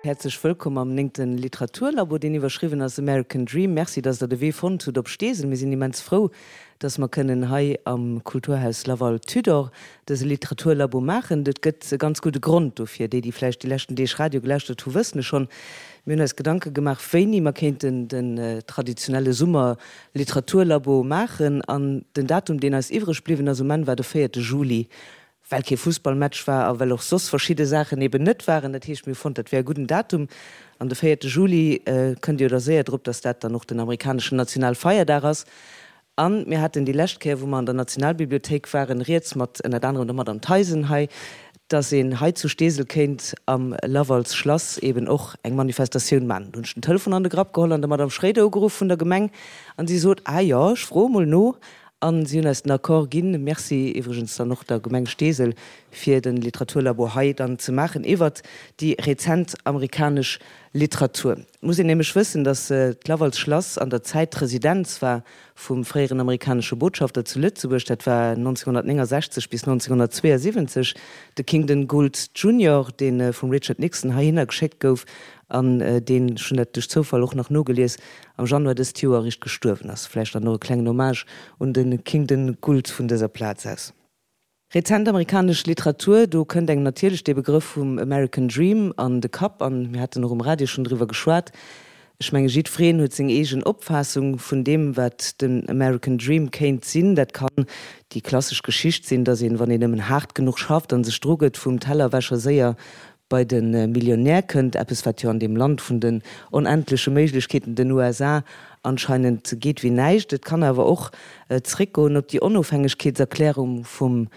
Häerzlech wëllkomm am néngte Literaturlabo, deen iwwerschriwwen ass American Dream. Merci, dass Der de Wee fonnt hutt op Steesel. Mir sinn immens frou, dass mer kënnen hei am Kulturhaus Laval Tudor dëse Literaturlabo maachen. Et gëtt e ganz gudde Grond dofir. Déi, déi vläicht déi leschten Deeg Radio gelauschtert hu, wëssen es schonn. Mir hunn eis Gedanke gemaach, wéini mer kéinten den traditionelle Summer-Literaturlabo maachen. An den Datum, deen eis iwwreg bliwwen ass um Enn, war de véierte Juli. Well kee Fussballmatch war a well och soss verschidde Saachen eben net waren. Dat heescht, mir hu fonnt, dat wär e gudden Datum. An de véierte Juli, kënnt Dir jo da séier drop, dass dat dann och den amerikaneschen Nationalfeierdag ass. A mir haten déi lescht Kéier, wou mer an der Nationalbibliothéik waren, rieds mat ënnert anerem der Madame Theisen hei, dass een hei zu Steesel kéint am Lavals Schlass eben och eng Manifestatioun maachen. Do hunn ech den Telefon an de Grapp geholl an der Madame Schréider ugeruff vun der Gemeng an si sot, Ah jo, ech froe mol no. An si hunn eis den Accord ginn, Merci iwwregens dann och der Gemeng Steesel, fir de Literaturlabo hei dann ze maachen iwwert déi rezent amerikanesch Literatur. Et muss een nämlech wëssen, datt d'Laval's Schlass an der Zäit d'Residenz war vum fréieren amerikanesche Botschafter zu Lëtzebuerg, dat war 1969 bis 1972, de Kingdon Gould Junior, dee vum Richard Nixon heihinner geschéckt gouf an deen, ech hunn dat duerch Zoufall och nach nogelies, am Januar dëst Joer eréischt gestuerwen ass. Vläicht dann och e klengen Hommage un de Kingdon Gould vun dëser Plaz aus. Rezent amerikanesch Literatur, do kënnt engem natierlech dee Begrëff vum American Dream an de Kapp an mir haten och um Radio schonn driwwer geschwat. Ech menge jiddwereen huet seng eegen Opfaassung vun deem wat den American Dream kéint sinn. Dat kann déi klassesch Geschicht sinn, datt een, wann een nëmmen haart genuch schafft an sech drugëtt, vum Tellerwäscher séier bei de Millionär kënnt, eppes wat jo an deem Land vun den onendleche Méiglechkeeten, den USA, anscheinend geet wéi näischt. Et kann awer och zréckgoen op déi Onofhängegkeetserklärung vum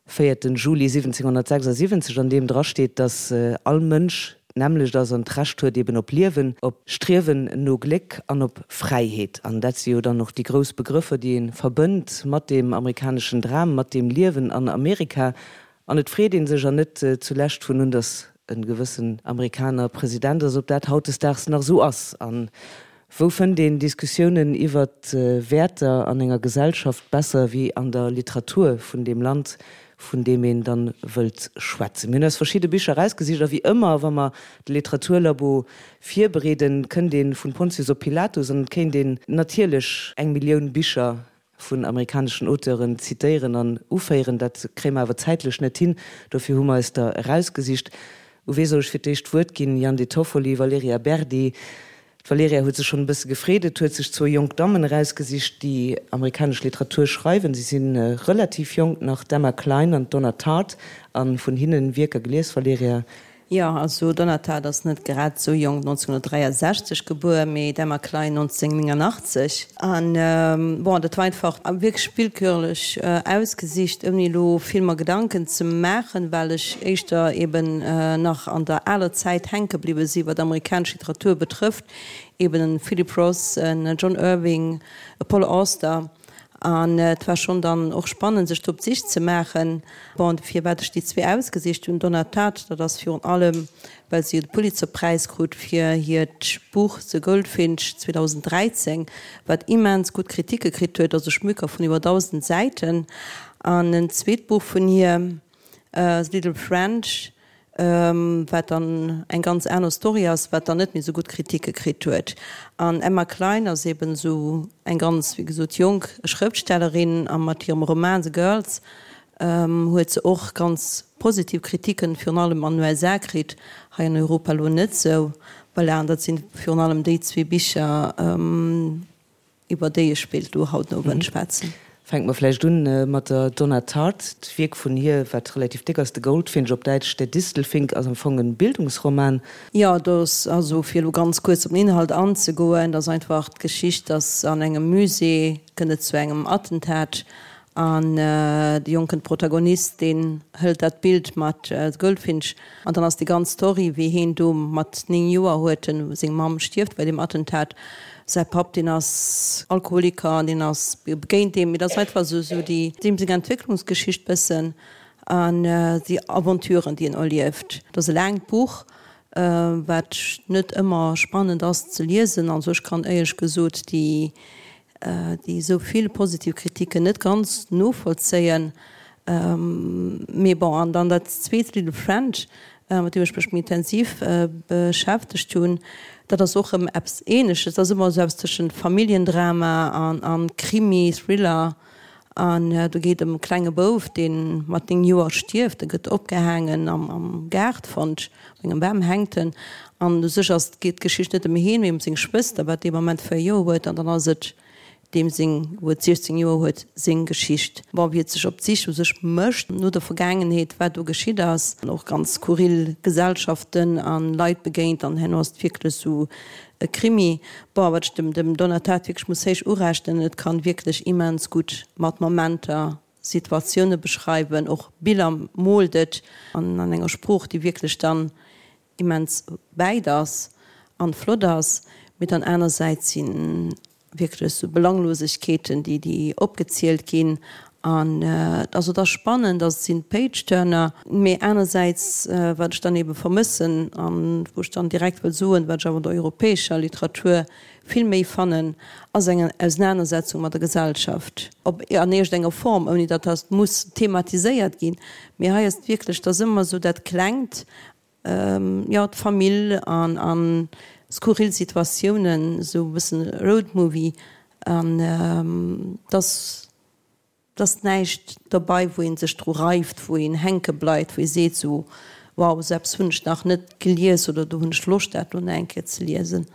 véierten Juli 1776, an deem drasteet, datt all Mënsch d'nämmlecht ass an d'Recht huet eben op Liewen, op Striewen no Gléck an op Fräiheet. An dat si jo dann och déi grouss Begrëffer, déi ee verbënnt mat deem amerikaneschen Dram, mat deem Liewen an Amerika. An et freet ee sech, an net zulescht vun un, datt e gewëssen Amerikaner President ass, ob dat hautdesdaags nach esou ass. A wou fënnt een Diskussiounen iwwer Wäerter an enger Gesellschaft besser wéi an der Literatur vun deem Land, vun deem een dann wëllt schwätzen? Mir hunn eis verschidde Bicher erausgesicht, a wéi ëmmer, wa mer de Literaturlabo virbereeden, kënnt ee vun Pontius op Pilatus an et kéint een natierlech eng Millioun Bicher vun amerikaneschen Auteuren zitéieren an uféieren. Dat kréie mer awer zäitlech net hin. Dofir hu mer eis der erausgesicht. U wee soll ech fir d'éischt d'Wuert ginn? Yann De Toffoli, Valerija Berdi. D'Valerija huet sech schonn e bësse gefreet. Et huet sech zwou jonk Dammen erausgesicht, déi amerikanesch Literatur schreiwen. Si si relativ jonk nach, d'Emma Cline an d'Donna Tartt. A vun hinnen Wierker gelies, Valerija? Jo, also Donna Tartt ass net grad esou jonk, 1963 gebuer, mee d'Emma Klein 1989. An bon, dat war einfach wierklech willkürlech ausgesicht, ouni elo vill mer Gedanken ze maachen, well ech éischter eben nach an der aler Zäit hänke bliwwe si wat amerikanesch Literatur betrëfft, eben e Philip Roth, en John Irving, e Paul Auster. An et war schonn dann och spannend, sech do op d'Sich ze maachen. Bon, firwat ech déi zwee ausgesicht hunn, Donna Tartt, dat ass virun allem, well se jo de Pulitzerpräis krut fir hiert Buch The Goldfinch 2013, wat immens gutt Kritike kritt huet, also Schmöker vun iwwer 1.000 Säiten. An en zweet Buch vun hir, The Little French, wat dann eng ganz aner Story ass, wat dann net méi esou gutt Kritike kritt huet. An Emma Cline ass eben esou eng ganz, wéi gesot, jonk Schrëftstellerin a mat hirem Roman The Girls huet se och ganz positiv Kritiken, virun allem an den USA kritt, hei an Europa elo net esou. Voilà, an dat sinn virun allem déi zwee Bicher. Iwwer déi ech wéilt elo haut den Owend schwätzen. Fänke mer vläicht un mat der Donna Tartt. D'Wierk vun hir, wat relativ déck ass, The Goldfinch, op Däitsch Der Distelfink, ass am Fong e Bildungsroman. Jo, do ass also, fir elo ganz kuerz op den Inhalt anzegoen, dat ass einfach d'Geschicht, dass an engem Musée kënnt et zu engem Attentat An de jonken Protagonist, deen hëlt dat Bild mat The Goldfinch an dann ass déi ganz Story, wéi heen do mat 9 Joer huet en, seng Mamm stierft bei deem Attentat, säi Papp deen ass Alkoholiker an deen ass begéint deem, mee dat ass einfach esou esou déi deem seng Entwécklungsgeschicht bëssen an déi Aventuren déi en erlieft. Et ass e laangt Buch, wat net ëmmer spannend ass ze liesen, also ech kann éierlech gesot déi déi esou vill positiv Kritiken net ganz novollzéien. Mee bon, an dann dat zweet Little French. mat deem ech mech méi intensiv beschäftegt hunn. Dat ass och erëm eppes Ähnleches. Dat ass ëmmer esou eppes tëschent Familljendrama an Krimi, Thriller. An do geet ëm e klenge Bouf, dee mat 9 Joer stierft. E gëtt opgehaangen am Gaart fonnt, op engem Bam hänkt en. An u sech ass, geet d'Geschicht net ëm hien, mee ëm seng Schwëster, wat dee Moment 4 Joer huet. An dann ass et deem seng, wou et 16 Joer huet, seng Geschicht. Bon, wéi et sech op d'Sich u sech mécht no der Vergaangenheet, wat do geschitt ass, an och ganz skurril Gesellschaften a Leit begéint, an herno ass et wierklech esou e Krimi. Bon, wat ech dem dem Donna Tartt wierklech muss héich urechnen, et kann wierklech immens gutt mat Momenter Situatioune beschreiwen, och Biller moolt et an an enger Sprooch, déi wierklech dann immens wäit ass an flott ass, mee dann anersäits si wierklech sou Belanglosegkeeten déi déi opgezielt ginn an also et ass spannend, ass et sinn Page-Turner, mee anersäits wat ech dann ebe vermëssen an wou ech dann direkt wëll soen, wat ech awer an der europäescher Literatur vill méi fannen, ass eng Ausenanersetzung mat der Gesellschaft op an iergend enger Form, ouni datt dat muss thematiséiert ginn, mee hei ass et wierklech, et ass ëmmer sou dat Klengt jo, d'Famill an a skurril Situatiounen, esou e bëssen Roadmovie an dass dass näischt dobei wou een sech dru reift, wou een hänke bleift, wou ee seet esou wow, esou eppes hunn ech nach net gelies oder do hunn ech Loscht dat elo nach eng Kéier ze liesen.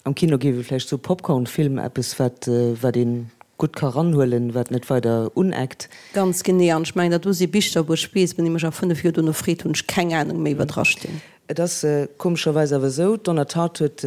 Am Kino géif ee vläicht soe Popcorn-Film, eppes wat wat ee gutt ka ranhuelen, wat net weider uneckt. Ganz genee, an ech mengen dat do si Bicher wou ech weess, wann ee mech a 5 Joer dono freet, hunn ech keng Anung méi wat dra stinn. Et ass komescherweis awer esou, d'Donna Tartt huet,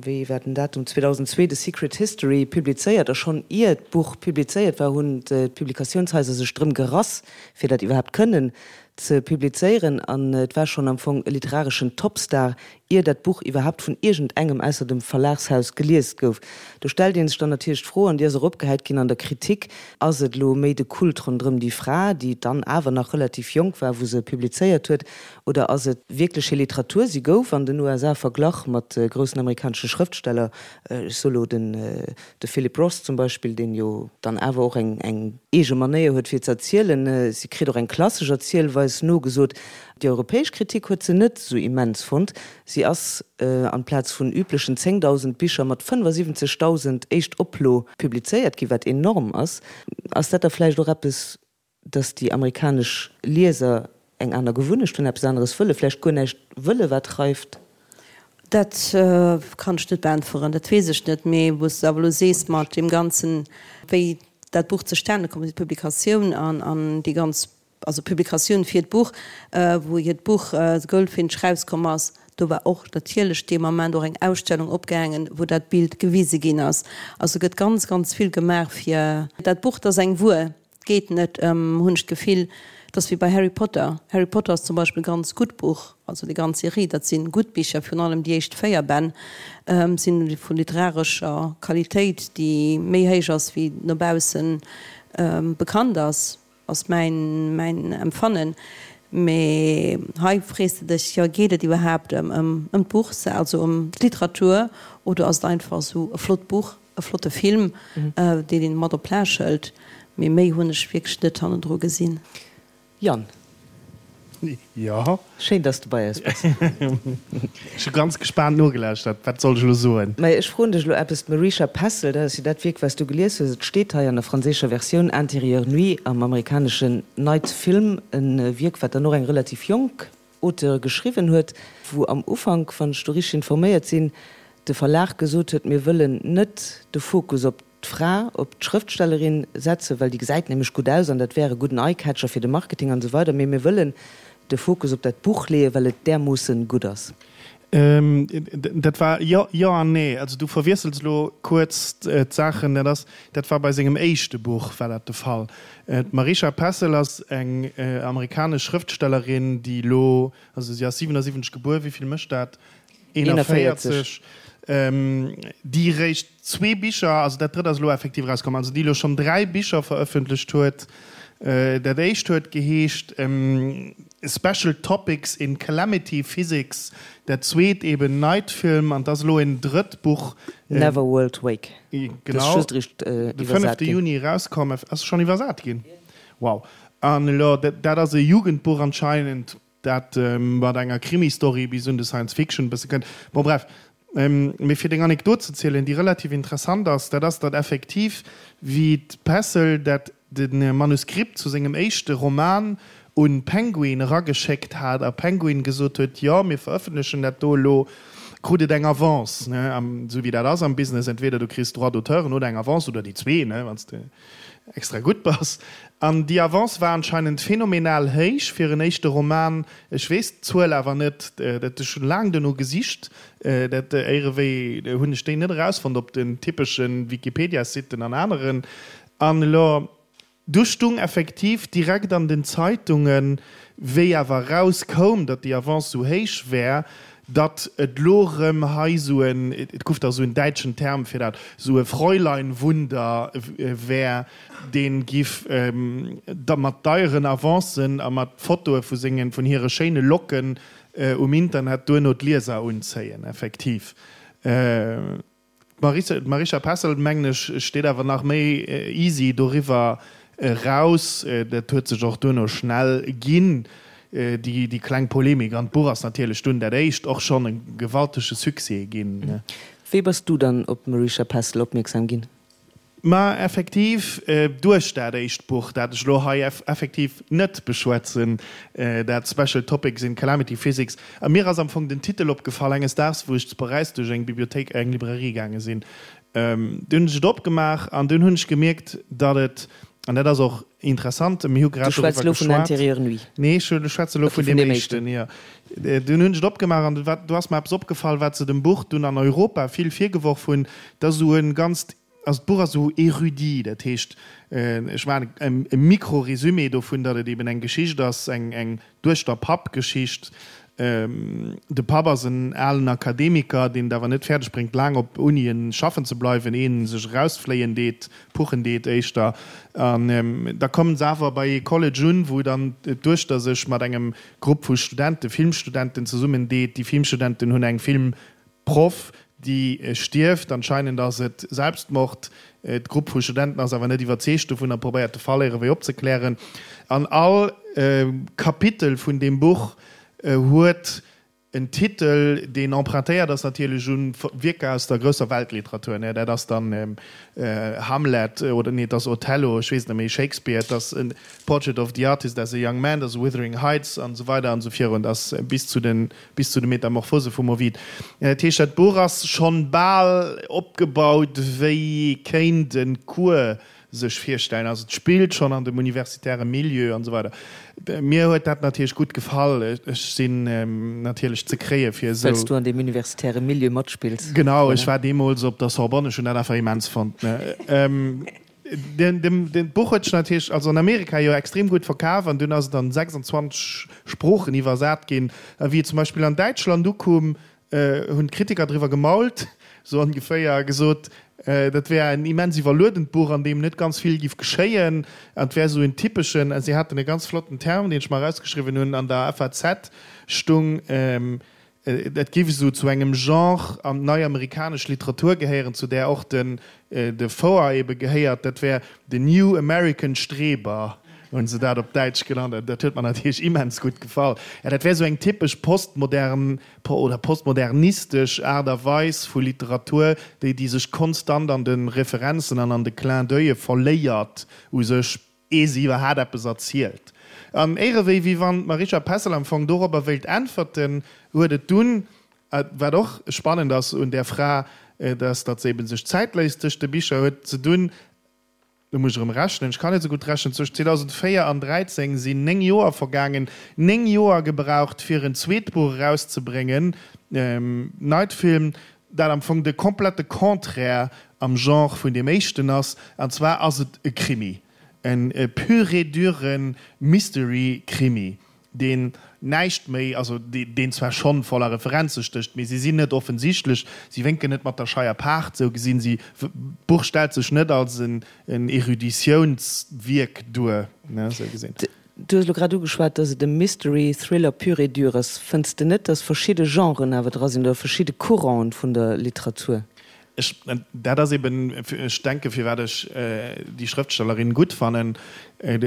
wéi war den Datum, 2002 The Secret History publizéiert a schonn ier d'Buch publizéiert war, hunn d'Publikatiounshaiser sech drëm gerass, fir dat iwwerhaapt kënnen ze publizéieren an et war schonn am Fong e literareschen Topstar, ier dat Buch iwwerhaapt vun iergendengem ausser dem Verlagshaus gelies gouf. Do stellt ee sech dann natierlech d'Fro, an déi ass och opgehäit ginn an der Kritik, Ass et elo méi de Kult ronderëm déi Fra, déi dann awer nach relativ jonk war, wou se publizéiert huet, oder ass et wierklech hir Literatur? Si gouf an den USA verglach mat groussen amerikanesche Schrëftsteller, ech soe lo den de Philip Roth zum Beispill, deen jo dann awer och eng eng eege Manéier huet fir ze erzielen. Si kritt och eng klassesch Erzielweis nogesot. Déi europäesch Kritik huet se net esou immens fonnt. Si ass amplaz vun üblechen 10.000 Bicher mat 75.000 Éischtoplo publizéiert ginn, wat enorm ass. Ass dat da vläicht och eppes, dass déi amerikanesch Lieser eng aner Gewunnecht hunn, eppes aneres wëllen, vläicht guer näischt wëllen, wat reift? Dat kann ech net beäntweren, dat weess ech net. Mee wou s de awer elo sees mat deem Ganzen, wéi dat Buch zustane komm ass, déi Publikatioun an déi ganz, also d'Publikatioun fir d'Buch, wou hiert Buch The Goldfinch rauskomm ass, do war och natierlech dee Moment och eng Ausstellung opgaangen, wou dat Bild gewise ginn ass. Also gëtt ganz, ganz vill gemaach fir dat Buch. Dat ass eng Wuer. Et geet net ëm, hunn ech d'Gefill, et ass wéi bei Harry Potter. Harry Potter ass zum Beispill e ganz gutt Buch, also déi ganz Serie, dat si gutt Bicher, virun allem déi éischt 4 Bänn si vu literarescher Qualitéit, déi méi héich ass wéi no bausse bekannt ass, ass mäin mäin Empfannen. Mee hei frees de dech, jo, geet et iwwerhaapt ëm d'Buch, also ëm d'Literatur, oder ass et einfach esou e flott Buch? E flotte Film, deen een mat op Plage hëlt, mee méi hunn ech wierklech net hannendru gesinn. Yann. Jo. Schéin, dass du bei eis bass. Ech hu ganz gespaant nogelauschtert. Wat soll ech elo soen? Mä ech froen dech elo eppes. D'Marisha Pessl, dat ass jo dat Wierk, wat s du gelies hues. Et steet hei an der franséischer Versioun Intérieur Nuit, am amerikaneschen Night Film, e Wierk, wat dann och eng relativ jonk Auteur geschriwwen huet, wou am Ufank, wann ech do richteg informéiert sinn, de Verlag gesot huet, mir wëllen net de Fokus op d'Fra, op d'Schrëftstellerin setzen, well déi gesäit nämlech gutt aus an dat wär e gudden Eye-Catcher fir de Marketing an esou weider, mee mir wëllen de Fokus op dat Buch leeën, well et därmoossen gutt ass. Dat war, jo, jo an nee. Also du verwiessels elo kuerz d'Saachen. Dat ass, dat war bei sengem éischte Buch war dat de Fall. D'Marisha Pessl ass eng amerikanesch Schrëftstellerin, déi elo, also si ass 77 gebuer, wéi vill mécht dat? 41, déi eréischt zwee Bicher, also dat drëtt ass elo effektiv erauskomm, also déi elo schonn dräi Bicher verëffentlecht huet. Dat éischt huet geheescht Special Topics in Calamity Physics, dat zweet eben Night Film an 't ass elo en drëtt Buch. Neverworld Wake. Genau, de fënnefte Juni erauskomm. Ass schonn iwwersat ginn? Wow. An elo, dat ass e Jugendbuch anscheinend. Dat mat enger Krimi-Story bis un de Science-Fiction e bësse kënnt. Bon, bref. Mee fir deng Anekdot ze zielen, déi relativ interessant ass, dat ass, datt effektiv, wéi d'Pessel dat de Manuskript zu sengem éischte Roman un Penguin erageschéckt hat a Penguin gesot huet, jo, mir verëffentlechen dat do elo, krut et eng Avance, ne, esou wéi dat ass am Business, entweder du kriss Droits d'auteuren oder eng Avance oder déi zwee, ne, wann s de extra gutt bass. An déi Avance war anscheinend phänomenal héich fir en éischte Roman. Ech weess d'Zuel awer net, dat ech hunn laang duerno gesicht, dat éierewéi hunn ech déi net erausfonnt op den typesche Wikipedia-Siten an aneren. An elo, du stung effektiv direkt an den Zeitungen, wéi awer erauskoum, datt déi Avance esou héich wär, datt et lo rëm hei sou en, et guff da sou en däitschen Term fir dat, sou e Fräuleinwunder wär, dee giff da mat deieren Avancen a mat Fotoe vu sengen, vun hire schéine Locken um Internet duerno d'Lieser unzéien, effektiv. D'Marisha Pessl, mengen ech, steet awer nach méi easy doriwwer eraus. Dat huet sech och duerno schnell ginn, déi kleng Polemik. An d'Buch ass natierlech dunn dat éischt och schonn e gewaltege Succès ginn. Wéi bass du dann op d'Marisha Pessl opmierksam ginn? Ma effektiv duerch dat éischt Buch, dat ech elo hei effektiv net beschwätzen, dat Special Topics in Calamity Physics. A mir ass am Fong den Titel opgefall enges Daags, wou ech zu Paräis duerch eng Bibliothéik, eng Librairie gaange sinn. Dunn hunn ech et opgemaach an dunn hunn ech gemierkt, datt et, an dat ass och interessant, mir hu grad Du schwätz doriwwer elo vun geschwat. Intérieur Nuit? Nee, ech schwätze elo Okay, vun vun deem deem éischten, éischten. jo. Dunn hunn ech et opgemaach an do ass mer eppes opgefall, wat se dem Buch dunn an Europa vill virgeworf hunn, dass esou e ganzt, also d'Buch ass esou érudit, dat heescht, ech maachen e Micro-Résumé dovun, datt et eben eng Geschicht ass, eng Duechter-Papp-Geschicht. De Papp ass en alen Akademiker, deen et awer net fäerdeg bréngt, laang op Unien schaffen ze bleiwen, een sech erausfléien deet, puchen deet éischter. An da kommen se awer bei ee College un, wou dann d'Duechter sech mat engem Grupp vu Studenten, Filmstudenten zesummen deet. Déi Filmstudenten hunn eng Filmproff, déi stierft. Anscheinend ass et Selbstmord. D'Grupp vu Studenten ass awer net iwwerzeegt dovun a probéiert de Fall éierewéi opzeklären. An all Kapitel vun deem Buch huet En Titel, deen empruntéiert ass natierlech un Wierker aus der grousser Weltliteratur, ne, dat ass dann Hamlet, oder nee, et ass Othello, ech weess et net méi, Shakespeare, et ass Portrait of the Artist as a Young Man, et ass Wuthering Heights an esou weider an esou virun, et ass bis zu den, bis zu de Metamorphose vum Ovid. Dat heescht, dat Buch ass schonn bal opgebaut, wéi ee kéint e Cours sech virstellen. Also et spillt schonn an dem universitäre Milieu an esou weider. Mir huet dat natierlech gutt gefall. Ech sinn natierlech ze kréie fir esou. Well s du an deem universitäre Milieu matspills. Genau, ech war deemools op der Sorbonne, ech hunn dat einfach immens fonnt. D'Buch huet sech natierlech, also an Amerika jo extrem gutt verkaf an dunn ass et an 26 Sproochen iwwersat ginn. A wéi et zum Beispill an Däitschland ukoum, hunn d'Kritiker driwwer gemault, sou ongeféier, a gesot, dat wär en immens iwwerluedent Buch, an deem net ganz vill giff geschéien, an et wär sou en typeschen, a si haten e ganz flotten Term, deen ech mer erausgeschriwwen hunn, an der FAZ stung, et giff esou zu engem Genre an d'nei-amerikanesch Literatur gehéieren, zu där och den De Foer ebe gehéiert, dat wär de New American Streber, hunn se dat op Däitsch genannt. Dat huet mer natierlech immens gutt gefall. Ja, dat wär esou eng typesch postmodern oder postmodernistesch Aart a Weis vu Literatur, déi déi sech konstant an de Referenzen an an de Clin d'oeile verléiert u sech, ee se iwwerhaat eppes erzielt. An éirewéi wéi wann d'Marisha Pessl am Fong dorobber wéilt äntwerten, huet et dunn Wat och spannend ass un där Fra, dat ass, datt se eben sech Zäit léisst tëscht de Bicher, huet ze dunn, lo muss ech erëm rechnen, ech kann net esou gutt rechnen, zwëschen 2004 an 13 sinn 9 Joer vergaangen, 9 Joer gebraucht fir en zweet Buch erauszebréngen, Night Film, dat am Fong de komplette Contraire am Genre vun deem éischten ass, an zwar ass et e Krimi, e pur et dure Mystery-Krimi. deen näischt méi, also deen zwar schonn voller Referenze stécht, mee si sinn net offensichtlech, si wénken net mat der Scheier Paart, sou gesinn. Si, d'Buch stellt sech net als en Eruditiounswierk duer, ne, sou gesinn. Du hues elo grad ugeschwat, dass et e Mystery Thriller pur et dur ass. Fënns de net, dass verschidde Genren awer dra sinn oder verschidde Couranten vun der Literatur? Ech, dat ass eben, ech denke firwat ech déi Schrëftstellerin gutt fannen,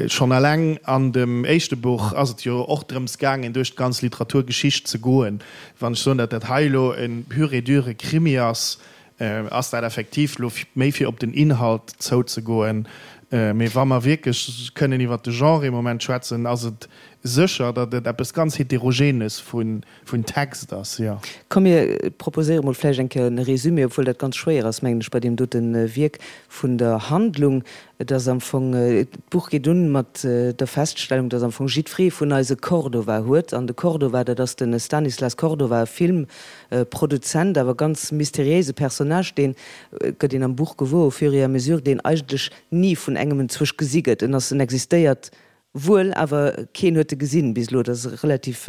schonn eleng an dem éischte Buch ass et jo och drëms gaangen, duerch d'ganz Literaturgeschicht ze goen. Wann ech soen, datt dat hei elo e pur et dure Krimi ass, ass dat effektiv elo méi fir op den Inhalt zouzegoen. Mee wa mer wierklech kënnen iwwert de Genre ee Moment schwätzen, ass et sécher, datt et eppes ganz Heterogenes vun Vun Text ass, jo. Komm mir proposéiere mol vläicht eng Kéier en Résumé, obwuel dat ganz schwéier ass, mengen ech, bei deem dote Wierk vun der Handlung. Et ass am Fong, d'Buch geet un mat der Feststellung, dass am Fong jiddweree vun eis e Cordova huet. An de Cordova, dat ass de Stanislas Cordova, e Filmproduzent, awer ganz mysteriéise Personnage, deen, gëtt een am Buch gewuer au fur et à mesure, deen eigentlech ni vun engem enzwousch gesi gëtt. En ass, en existéiert Wuel, awer keen huet e gesinn bis elo, dat ass relativ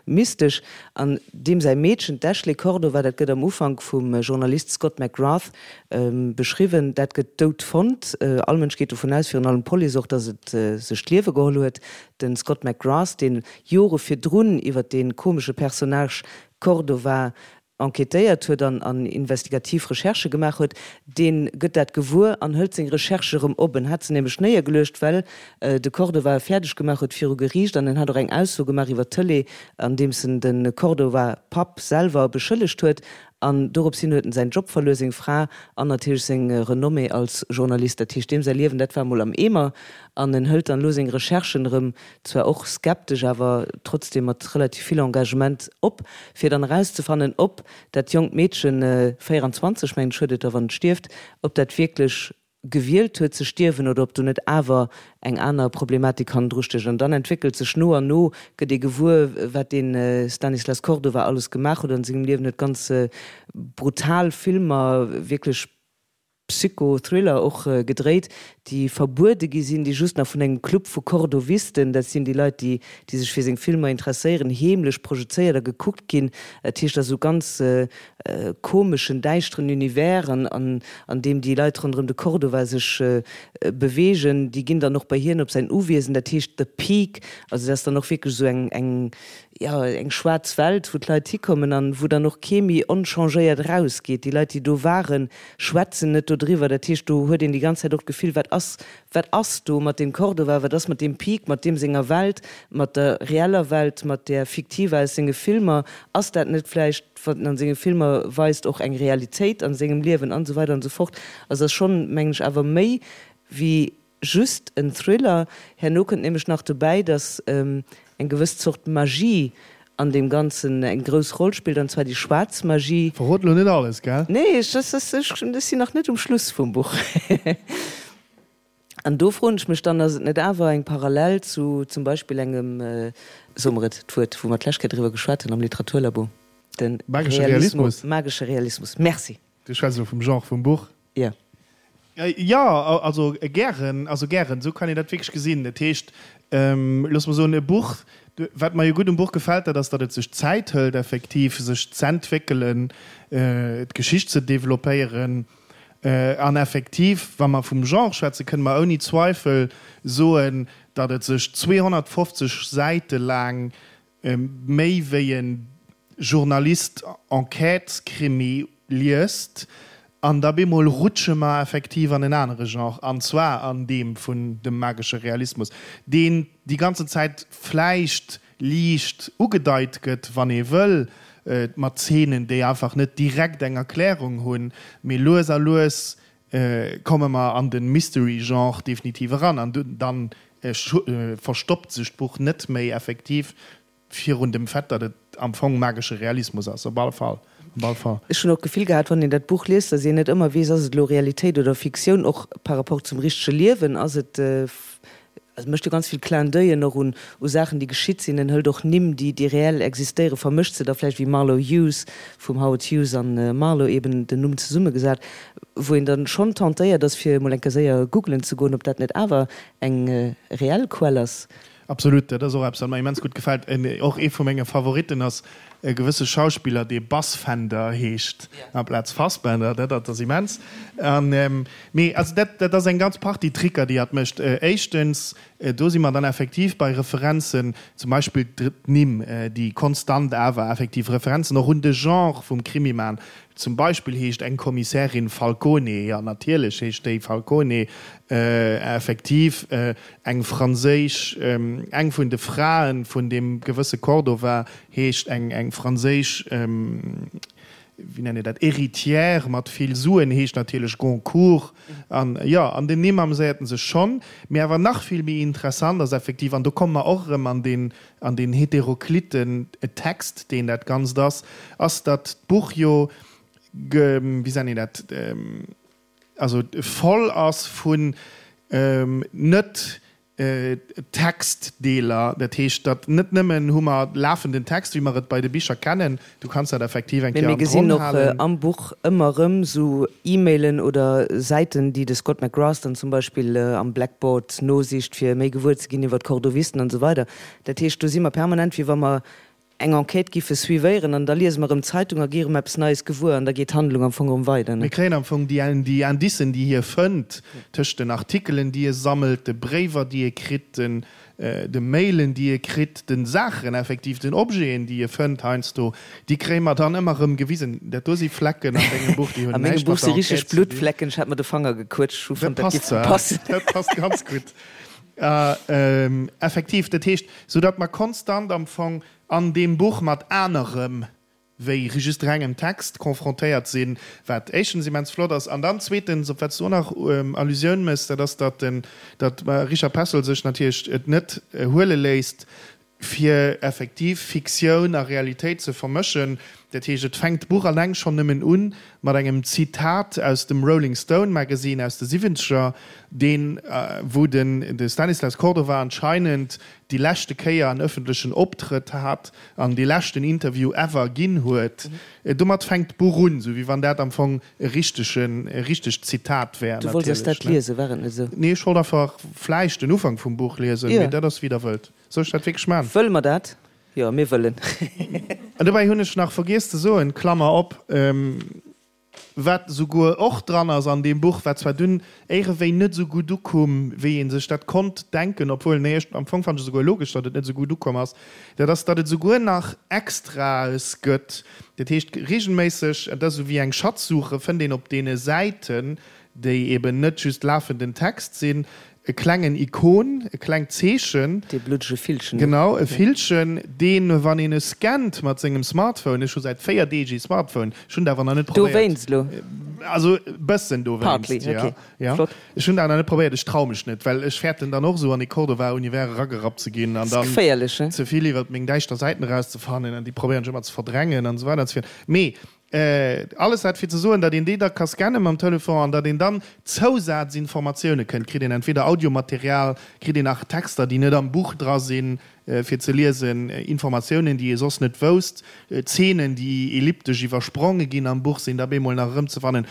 mystesch. An deem säi Meedchen, d'Ashley Cordova, dat gëtt am Ufank vum Journalist Scott McGrath beschriwwen, dat gëtt dout fonnt. All Mënsch geet dovun aus, virun allem d'Police och, datt et sech d'Liewe geholl huet. De Scott McGrath, dee Jore virdrun iwwer dee komesche Personnage Cordova enquêtéiert huet an an investigativ Recherchë gemaach huet, dee gëtt dat gewuer an hëlt seng Recherche erëm op. En hat se nämlech néiergeluecht, well de Cordova e fäerdeg gemaach huet viru Geriicht an en hat och eng Ausso gemaach iwwer d'Tëlee, andeems en de Cordova-Papp selwer beschëllegt huet. An dorops hin huet en säin Job verluer, seng Fra an natierlech seng Renommée als Journalist. Dat heescht, deem säi Liewen, dat war emol am Eemer an en hëlt dann elo seng Recherchen erëm zwar och skeptesch, awer trotzdem mat relativ vill Engagement op, fir dann erauszefannen, ob dat jonkt Meedchen, 24 mengen ech huet et da wann et stierft, ob dat wierklech gewielt huet ze stierwen oder ob do net awer eng aner Problematik hannendru stécht. An dann entwéckelt sech no an no, gëtt ee gewuer, wat dee Stanislas Cordova alles gemaach huet an sengem Liewen, huet ganz brutal Filmer, wierklech Psycho-Thriller och gedréit, déi verbuede gi sinn, déi just nach vun engem Club vu Cordovisten, dat sinn déi Leit, déi déi sech fir seng Filmer interesséieren, heemlech projezéiert a gekuckt ginn. Dat heescht, dat ass esou ganz komeschen, däischteren Univers, an an deem déi Leit ronderëm de Cordova sech beweegen. Déi ginn dann och bei hien op säin Uwiesen, dat heescht The Peak. Also dat ass dann och wierklech esou eng eng jo, eng schwaarz Welt, wou d'Leit hikommen an wou dann och kee méi onchangéiert erausgeet. Déi Leit, déi do waren, schwätzen net dodriwwer. Dat heescht, do huet een déi ganz Zäit och d'Gefill, wat ass, wat ass do mat deem Cordova, wat ass mat deem Peak, mat deem senger Welt, mat der reeller Welt, mat där fiktiver aus senge Filmer? Ass dat net vläicht, wat en an senge Filmer weist, och eng Realitéit an sengem Liewen an esou weider an esou fort. Also ass schonn, mengen ech, awer méi wéi Just en Thriller. Herno kënnt nämlech nach dobäi, dass eng gewëss Zort Magie an deem Ganzen eng grouss Roll spillt, an zwar déi schwaarz Magie. Verrot elo net alles, gell? Nee, ech sinn nach net um Schluss vum Buch. An do froen ech mech dann, ass et net awer eng Parallel zu zum Beispill engem, soe mer et, d'Wuert, wou mer d'lescht Kéier driwwer geschwat hunn am Literaturlabo, de Magesche Realismus. Magesche Realismus. Merci. Du schwätz elo vum Genre vum Buch? Jo. Jo, also gären, also gären, esou kann een dat wierklech gesinn. Dat heescht, looss mer soen, e Buch, wat mer jo gutt um Buch gefält, dat ass, datt et sech Zäit hëlt effektiv, sech z'entwéckelen, d'Geschicht ze developpéieren. An effektiv, wa mer vum Genre schwätzen, kënne mer ouni Zweifel soen, datt et sech 250 Säite laang méi wéi e Journalist Enquêtes-Krimi liest, an da bemol rutsche mer effektiv an en anere Genre, an zwar an deem vun dem magesche Realismus, deen déi ganzen Zäit vläicht liicht ugedeit gëtt, wann ee wëll, mat Zeenen, déi einfach net direkt eng Erklärung hunn, mee lues a lues komme mer an de Mystery-Genre definitiv eran an dann verstoppt sech d'Buch net méi effektiv virun dem Fait, datt et am Fong magesche Realismus ass. Op alle Fall, op alle Fall. Ech hunn och d'Gefill gehat, wann een dat Buch liest, datt een net ëmmer weess, ass et elo Realitéit oder Fiktioun, och par rapport zum richtege Liewen, ass et Also mécht jo ganz vill Clin d'oeillen och un u Saachen, déi geschitt sinn. En hëlt och Nimm, déi déi reell existéieren, vermëscht se da vläicht, wéi Marlowe Hughes, vum Howard Hughes an Marlowe eben den Numm zesummegesat, wou een dann schonn tentéiert ass, fir emol eng Kéier séier googlen ze goen, ob dat net awer eng reell Quell ass. Absolut, dat ass och eppes, wat mer immens gutt gefält. Och ee vu menge Favoritten ass e gewësse Schauspiller, dee Bassfender heescht amplaz Fassbender. Dat ass immens. An, mee also dat, dat ass eng ganz Partie Tricker, déi hatt mécht. Éischtens Do si mer dann effektiv bei Referenzen, zum Beispill d'Nimm, déi konstant awer effektiv Referenzen och un de Genre vum Krimi maachen. Zum Beispill heescht eng Kommissärin Falcone, jo natierlech heescht déi Falcone, effektiv eng franséisch, eng vun de Frae vun deem gewësse Cordova heescht eng eng franséisch, wéi nennt een dat, Héritière mat vill Suen heescht natierlech Goncourt. An jo, an den Nimm ameséiert en sech schonn. Mee awer nach vill méi interessant ass effektiv, an do komme mer och erëm an deen an deen heterokliten Text, deen dat Ganzt ass, ass, datt d'Buch jo, wéi sennen een dat, also voll ass vun net Textdeeler. Dat heescht, datt net nëmmen hu mer lafenden Text, wéi mer et bei de Bicher kennen, du kanns dat effektiv eng Mee Kéier mir an gesinn d'Ronn och halen. am Buch ëmmer erëm sou E-Mailen oder Säiten, déi de Scott McGrath dann zum Beispill am Blackboard nosicht, fir méi gewuer ze ginn iwwer d'Cordovisten an esou weider. Dat heescht, do si mer permanent, wéi wa mer eng Enquête giffe suivéieren an da liese mer erëm d'Zeitung a gi erëm eppes Neies gewuer an da geet d'Handlung am Fong erëm weider. Mir kréien am Fong déi déi Indicen, déi hie fënnt, tëscht den Artikelen, déi e sammelt, de Bréiwer, déi e kritt, den de Mailen, déi e kritt, de Saachen effektiv, den Objeten, déi e fënnt heiansdo, déi kréie mer dann ëmmer erëm gewisen. Dat do si Flecken an dengem Buch, déi hunn näischt mat der Enquête ze dinn. A mengem Buch si richteg Bluttflecken, ech hat mer de Fanger gequëtscht, ech hu fonnt, dat giff passen. Dat passt ganz gutt. Effektiv, dat heescht, soudatt mer konstant am Fong an deem Buch mat anerem wéi just rengem Text confrontéiert sinn, wat éischtens immens flott ass, an dann zweetens, op wat s du och nach Allusioun méchs, dat ass, datt den Richard Petzold sech natierlech et net huele léisst, fir effektiv Fiktioun a Realitéit ze vermëschen. Dat heescht, et fänkt d'Buch alleng schonn nëmmen u mat engem Zitat aus dem Rolling Stone Magazine aus de Siwwenzeger, deen, wou den de Stanislas Cordova anscheinend déi leschte Kéier en ëffentlechen Optrëtt hat an dee leschten Interview ever ginn huet. Domat fänkt d'Buch un, sou wéi wann dat am Fong e richtegen, e richtegt Zitat wär. Du wollts eis dat liesen, war et net esou? Nee, ech wollt einfach vläicht den Ufank vum Buch liesen, mee dat ass wéi der wëllt. Soll ech dat wierklech man? Wëlle mer dat? Jo, mir wëllen. An dobäi hunn ech nach vergiess ze soen, Klammer op, wat esouguer och dran ass an deem Buch, wat zwar dunn éirewéi net esou gutt ukoum, wéi ee sech dat konnt denken, obwuel, nee, ech, am Fong fannen ech esouguer logesch, datt et net esou gutt ukomm ass, dat ass, datt et esouguer nach Extraes gëtt. Dat heescht, regelméisseg, et ass esou wéi eng Schatzsuche, fënnt een op deene Säiten, déi eben net just lafenden Text sinn, e klengen Ikon, e klengt Zeechen. Dee bluddege Villchen. Genau, e Villchen, deen, wann een e scannt mat sengem Smartphone, ech hu säit 4 Deeg ee Smartphone, ech hunn et awer nach net probéiert. Dowéinst elo? Also e bëssen dowéinst, Partly, jo. ok. Jo. Flott. Ech hunn et awer nach net probéiert, ech trau mech net, well ech fäerten dann och esou an dee Cordova-Univers eragerappt ze ginn an Ass dann geféierlech, he? ze vill iwwert meng däischter Säiten erauszefannen an déi probéieren ech ëmmer ze verdrängen an esou weider an esou fort. Mee Alles dat fir ze soen, datt een déi da ka scanne mam Telefon an datt een dann Zousazinformatioune kënnt. Kritt een entweder Audiomaterial, kritt een nach Texter, déi net am Buch dra sinn, fir ze liesen, Informatiounen, déi ee soss net wousst, Zeenen, déi elliptesch iwwerspronge ginn am Buch, sinn da bemol nach erëmzefannen.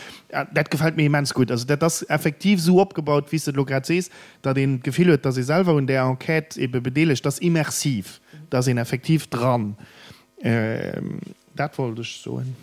Dat gefält mir immens gutt. Also dat ass effektiv esou opgebaut, wéi s de et elo grad sees, datt een d'Gefill huet, datt ee selwer un där Enquête ebe bedeelegt ass, immersiv, da ass een effektiv dran. Dat wollt ech soen.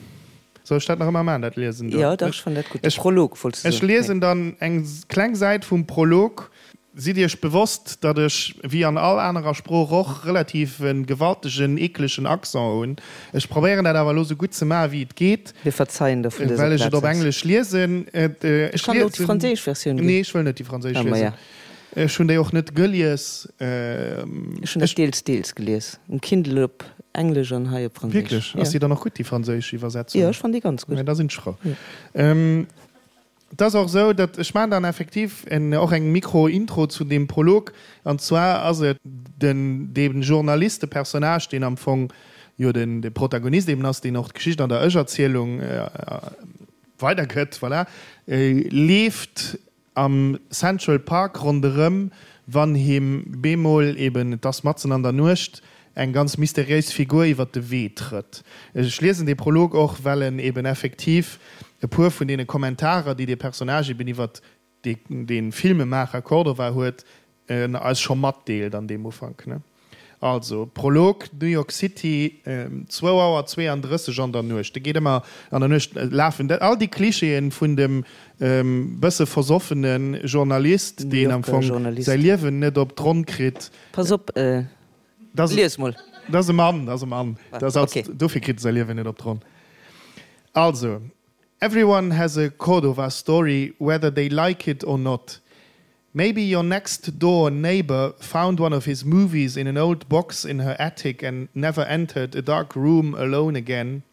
Soll ech dat nach ëmmer maachen, dat Liesen do? Jo, dach, ech fannen dat gutt. De Prolog wollts du Ech soen. liesen dann eng kleng Säit vum Prolog. Sidd Iech bewosst, datt ech, wéi an all anerer Sprooch och, relativ e gewaltegen, eeklegen Accent hunn. Ech probéieren dat awer elo sou gutt ze maachen, wéi et geet. Mir verzeien der vun dëser Well ech et Plaz op aus. Englesch liesen. Ech kann der och déi franséisch Versioun ginn. Nee, ech wëll net déi franséisch Ah, liesen. maja. Ech hunn déi och net gelies. Ech hunn dat deels, deels gelies. Um Kindle op Englesch an hei op Franséisch. Wierklech? Ass déi dann och gutt, déi franséisch Iwwersetzung? Jo, ech fannen déi ganz gutt. Da sinn ech frou. Et ass och esou, datt ech maachen dann effektiv och eng Mikro-Intro zu deem Prolog. An zwar ass et den, dee Journalist, de Personnage, deen am Fong jo den, de Protagonist eben ass, deen och d'Geschicht an der Ech-Erzielung weidergëtt, voilà, leeft Am Central Park ronderëm, wann him bemol eben, et ass matzen an der Nuecht, eng ganz mysteriéis Figur iwwer de Wee trëtt. Ech liesen dee Prolog och, well en eben effektiv e puer vun deene Kommentarer, déi dee Personnage eben iwwer dee Filmemaacher Cordova huet, eis scho matdeelt an deem Ufank. Also, Prolog, New York City, zwou Auer 32 an der Nuecht. E geet ëmmer an der Nuecht lafen. All déi Klischeeën vun dem bësse versoffene Journalist, deen am Fong säi Liewen net op d'Ronn kritt. Pass op, lies mol. Dat ass e Mann, dat ass e Mann. Dofir kritt e säi Liewen net op d'Ronn. Also, Everyone has a Cordova story, whether they like it or not. Maybe your next door neighbor found one of his movies in an old box in her attic and never entered a dark room alone again.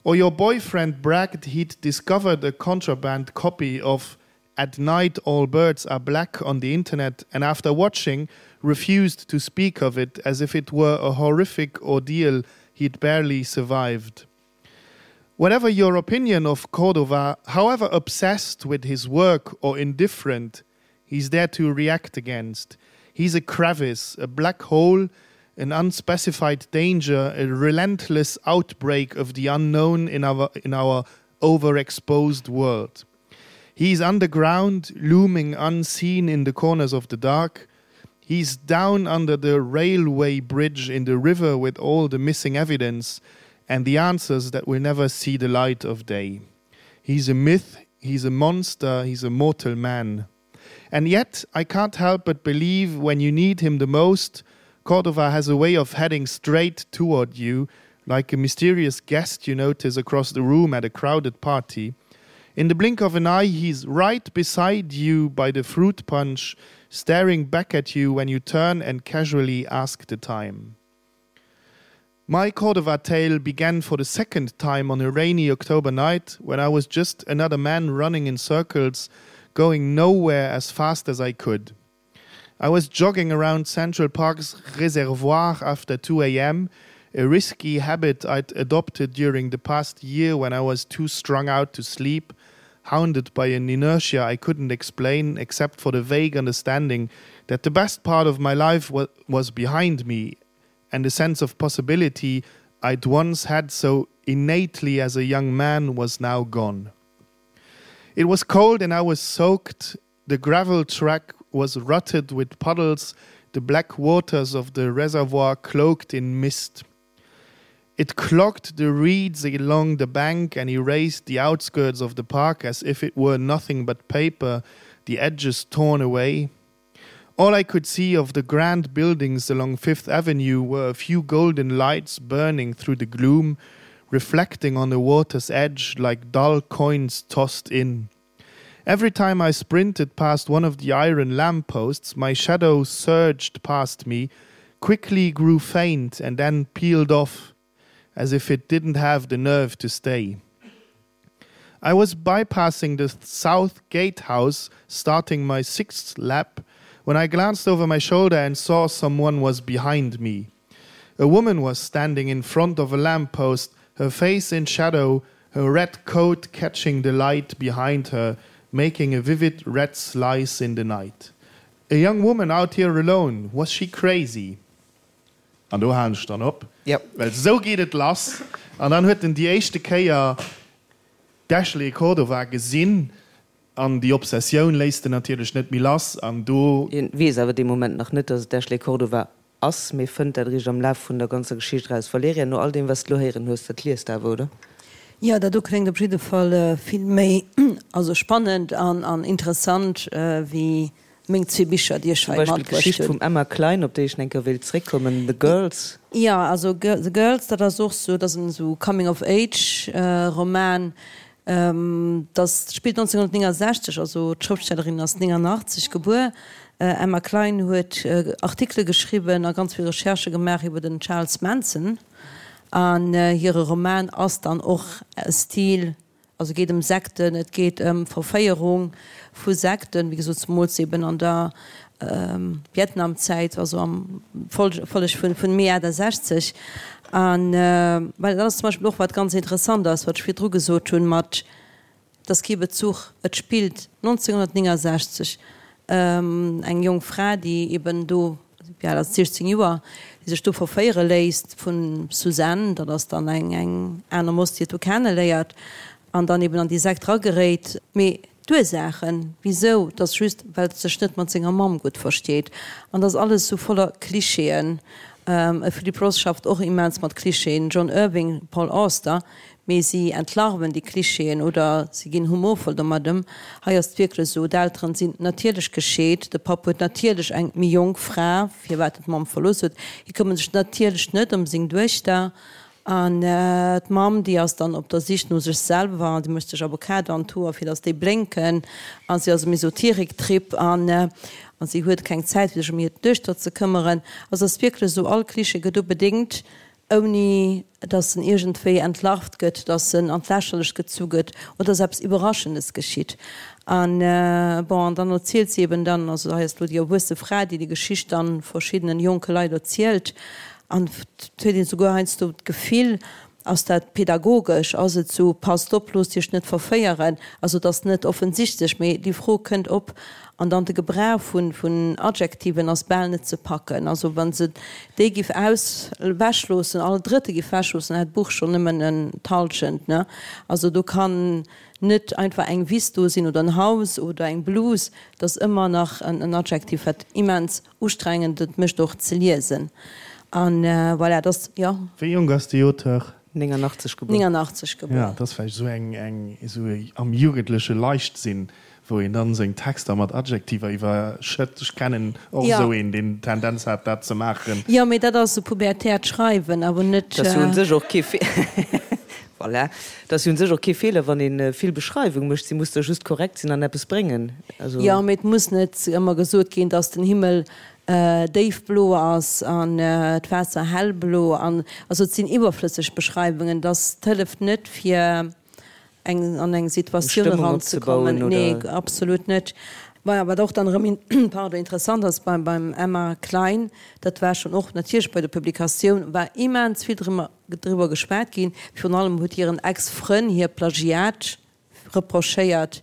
Or your boyfriend bragged he'd discovered a contraband copy of At Night All Birds Are Black on the internet and after watching refused to speak of it as if it were a horrific ordeal he'd barely survived. Whatever your opinion of Cordova, however obsessed with his work or indifferent, he's there to react against. He's a crevice, a black hole, an unspecified danger, a relentless outbreak of the unknown in our, in our overexposed world. He's underground, looming unseen in the corners of the dark. He's down under the railway bridge in the river with all the missing evidence and the answers that will never see the light of day. He's a myth, he's a monster, he's a mortal man. And yet I can't help but believe when you need him the most, Cordova has a way of heading straight toward you, like a mysterious guest you notice across the room at a crowded party. In the blink of an eye, he's right beside you by the fruit punch, staring back at you when you turn and casually ask the time. My Cordova tale began for the second time on a rainy October night when I was just another man running in circles, going nowhere as fast as I could. I was jogging around Central Park's reservoir after 2 a.m., a risky habit I'd adopted during the past year when I was too strung out to sleep, hounded by an inertia I couldn't explain except for the vague understanding that the best part of my life wa was behind me and the sense of possibility I'd once had so innately as a young man was now gone. It was cold and I was soaked. The gravel track was rutted with puddles, the black waters of the reservoir cloaked in mist. It clogged the reeds along the bank and erased the outskirts of the park as if it were nothing but paper, the edges torn away. All I could see of the grand buildings along Fifth Avenue were a few golden lights burning through the gloom, reflecting on the water's edge like dull coins tossed in. Every time I sprinted past one of the iron lampposts, my shadow surged past me, quickly grew faint and then peeled off, as if it didn't have the nerve to stay. I was bypassing the south gatehouse, starting my sixth lap, when I glanced over my shoulder and saw someone was behind me. A woman was standing in front of a lamppost, her face in shadow, her red coat catching the light behind her, making a vivid red slice in the night. A young woman out here alone, was she crazy? An do halen ech dann op, well esou geet et lass. An dann huet en déi éischte Kéier d'Ashley Cordova gesinn an déi Obsessioun léisst en natierlech net méi lass. An do. Hien weess awer dee Moment nach net, dass et d'Ashley Cordova ass, mee fënnt dat eréischt am Laf vun der ganzer Geschicht eraus. Valerija, no all deem, wat s de elo héieren hues, dat liest de awer, oder? Jo, dat do kléngt op jidde Fall vill méi, also spannend an interessant wéi Meng zwee Bicher, déi ech hei matbruecht hunn. Zum Beispill d'Geschicht vum Emma Klein, op déi ech nach eng Kéier wéilt zréckkommen, The Girls. Jo, also The Girls, dat ass och sou, dat ass en sou Coming of Age Roman. Dat spillt 1969, also d'Schrëftstellerin ass 89 gebuer. Emma Klein huet Artikele geschriwwen a ganz vill Recherchë gemaach iwwer den Charles Manson an hire Roman ass dann och Stil Also et geet ëm Sekten, et geet ëm Verféierung vu Sekten, wéi gesot zemools eben an der Vietnamzäit, also am Folleg vun Mee 68. An well dat ass zum Beispill och wat ganz interessant ass, wat ech virdru gesot hunn, mat et ass kee Bezuch, et spillt 1969, eng jonk Fra, déi eben do, wéi al ass se, 16 Joer, déi sech do verféiere léisst vun Suzanne, dat ass dann eng eng aner Moss, déi et do kenneléiert an dann eben an déi Sekt rageréit. Mee. D'Ursaachen, wisou, 't ass just, well et sech net mat senger Mamm gutt versteet. An 't ass alles sou voller Klischeeën. E Philip Roth schafft och immens mat Klischeeën, John Irving, Paul Auster, mee si entlarven déi Klischeeën oder si ginn humorvoll domat ëm. Hei ass et wierklech esou, d'Elteren sinn natierlech gescheet, de Papp huet natierlech eng méi jonk Fra, firwat en d'Mamm verlooss huet, hie këmmert sech natierlech net ëm seng Duechter An d'Mamm, déi ass dann op der Sich no sech selwer, déi mécht sech Avocado an d'Hoer, fir datt déi blénken, a si ass um Esoterik-Trip an a si huet keng Zäit, fir sech ëm hir Duechter ze këmmeren. Also et ass wierklech esou, all Klischee gëtt ubedéngt, ouni datt en iergendwéi entlarvt gëtt, datt en an d'Lächerlecht gezu gëtt oder datt eppes Iwwerraschendes geschitt. An bon, an dann erzielt si eben dann, also hei ass elo déi erwuesse Fra, déi déi Geschicht dann verschiddenen jonke Leit erzielt, An et huet een souguer heiansdo d'Gefill, ass dat pedagogesch, ass et sou, passt op, loosst Iech net verféieren. Also et ass net offensichtlech, mee déi Fro kënnt op. An dann de Gebrauch vun Adjektiven ass bal net ze packen. Also wa se déi giff aus ewechloossen, all Drëtte giff ewechloossen, hätt d'Buch schonn nëmmen en d'Hallschent, ne? Also do kann net einfach eng Wiss do sinn oder en Haus oder eng Blus, et ass ëmmer nach en Adjektiv, wat immens Ustrengend, et mécht och ze liesen an voilà, et ass, jo. Wéi jonk ass déi Auteur? 89 gebuer. 89 gebuer. Jo, et ass vläicht esou eng, eng, esou am jugendleche Leichtsinn, wou een dann seng Texter mat Adjektiver iwwerschëtt. Ech kennen och esou een, deen d'Tendenz hat, dat ze maachen. Jo, mee dat ass esou pubertäert Schreiwen, awer net. Dat ass jo un sech och kee Voilà. Et ass jo un sech och kee Feeler, wann ee vill Beschreiwung mécht. Si muss da just korrekt sinn an eppes bréngen. Also. Jo, mee et muss net ëmmer gesot ginn, dass den Himmel déifblo ass an d'Waasser hellblo an, also et sinn iwwerflësseg Beschreiwungen. Dass et hëlleft net fir eng an eng Situatioun eranzekommen. Nee, absolut net. Maja, wat och dann erëm, pardon, interessant ass beim beim Emma Klein, dat war schonn och natierlech bei der Publikatioun war immens vill drëmmer driwwer geschwat ginn. Virun allem huet hiren Ex-Frënn hir Plagiat reprochéiert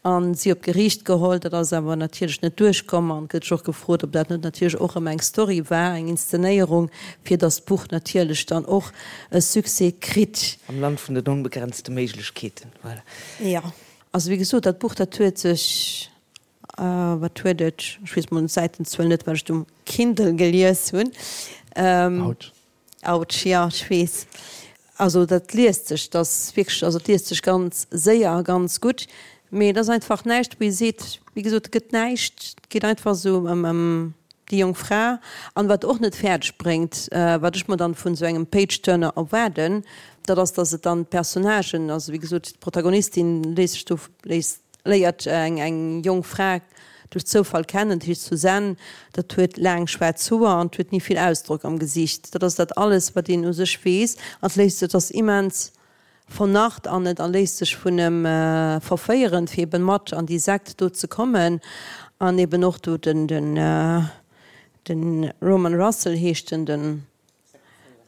a si op d'Geriicht geholl. Dat ass awer natierlech net duerchkomm an et gëtt sech och gefrot, ob dat net natierlech och erëm eng Story war, eng Inszenéierung, fir datt d'Buch natierlech dann och e Succès kritt. Am Land vun den onbegrenzte Méiglechkeeten, voilà. Jo, also wéi gesot, dat Buch, dat huet sech Wat huet et? Ech weess mol d'Säitenzuel net, well ech et um Kindle gelies hunn. Autsch. Autsch, jo, ech weess. Also dat liest sech, dat ass wierklech, also et liest sech ganz séier a ganz gutt, mee et ass einfach näischt, wou ee seet, wéi gesot, et gëtt näischt, et geet einfach esou ëm ëm déi jonk Fra. An wat och net fäerdeg bréngt, wat ech mer dann vun esou engem Page-Turner erwaarden, dat ass, datt et dann d'Personnagen, also wéi gesot, d'Protagonistin léisst sech do, léisst, léiert eng eng jonk Fra duerch Zoufall kennen, dat heescht Suzanne, dat huet laang schwaarz Hoer an huet ni vill Ausdrock am Gesicht. Dat ass dat alles, wat een u sech weess. An et léisst, et ass immens vernarrt an et a léisst sech vun em verféieren, fir eben mat an déi Sekt do ze kommen. An eben och do den, den, den Roman Russell heescht en, den.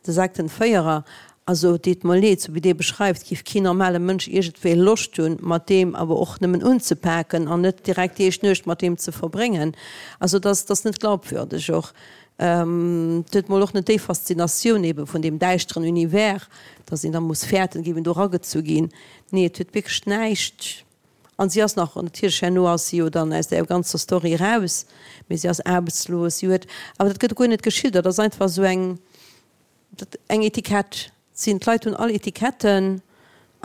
De Sektenféierer, also et deet mer leed, sou wéi dee beschreift, giff keen normale Mënsch iergendwéi Loscht hunn, mat deem awer och nëmmen unzepaken an net direkt déi éischt Nuecht mat deem ze verbréngen. Also et ass, et ass net glaubwürdeg och. Et huet mol och net déi Faszinatioun ebe vun deem däischteren Univers, dass een da muss fäerten, géif een do eragezu ginn. Nee, et huet wierklech näischt. An si ass nach, natierlech herno ass si jo dann aus där ganzer Story eraus, mee si ass aarbechtslos, si huet, awer dat gëtt guer net geschildert, dat ass einfach esou eng, dat eng Etikett sinn, d'Leit hunn all Etiketten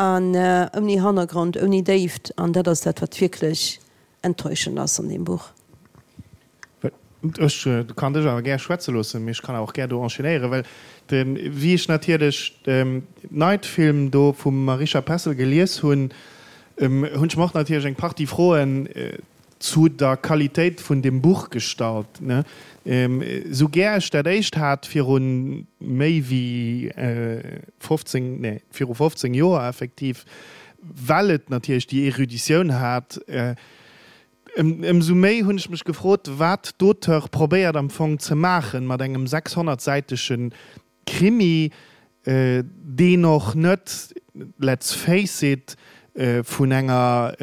an ouni Hannergrond, ouni Déift an dat ass dat, wat wierklech enttäuschend ass an deem Buch. Ech kann dech awer gär schwätze loossen, mee ech kann awer och gär do enchaînéieren, well wéi ech natierlech Night Film do vum Marisha Pessl gelies hunn, hunn ech mer och natierlech eng Partie Froen zu der Qualitéit vun deem Buch gestallt. Esou gär ech dat éischt hat viru méi wéi 15, nee, viru 15 Joer effektiv, well et natierlech déi Eruditioun hat, Ëmsou méi hunn ech mech gefrot, wat d'Auteure probéiert am Fong ze maachen mat engem 600 säitege Krimi, deen och net, let's face it, vun enger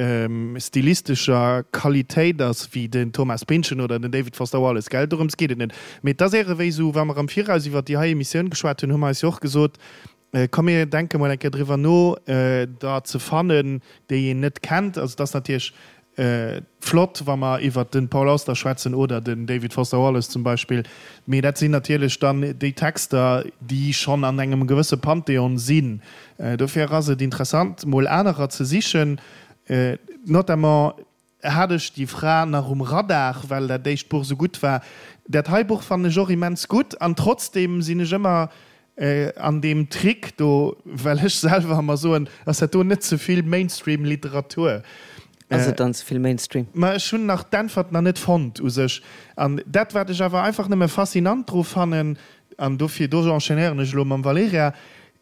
stilistescher Qualitéit ass wéi den Thomas Pynchon oder den David Foster Wallace, gell? Dorëms geet et net. Mee et ass éierewéi esou, wa mer am Viraus iwwer déi hei Emissioun geschwat hunn, hu mer eis jo och gesot, Komm mir denke mol eng Kéier driwwer no, der ze fannen, déi een net kennt. Also et ass natierlech. Flott, wa mer iwwert de Paul Auster schwätzen oder den David Foster Wallace zum Beispill, mee dat sinn natierlech dann déi Texter, déi schonn an engem gewësse Pantheon sinn. Dofir ass et interessant, mol anerer ze sichen. Notamment hat ech déi Fra nach um Radar, well dat éischt Buch esou gutt war. Dat hei Buch fannen ech och immens gutt an trotzdeem sinn ech ëmmer An deem Trick do, well ech selwer emmer soen, ass dat do net ze vill Mainstream-Literatur? Ass et dann ze vill Mainstream? Ma ech hunn nach d'Äntwert nach net fonnt u sech. An dat, wat ech awer einfach nëmme faszinant dru fannen, an dofir, do enchaînéieren ech elo mam Valerija,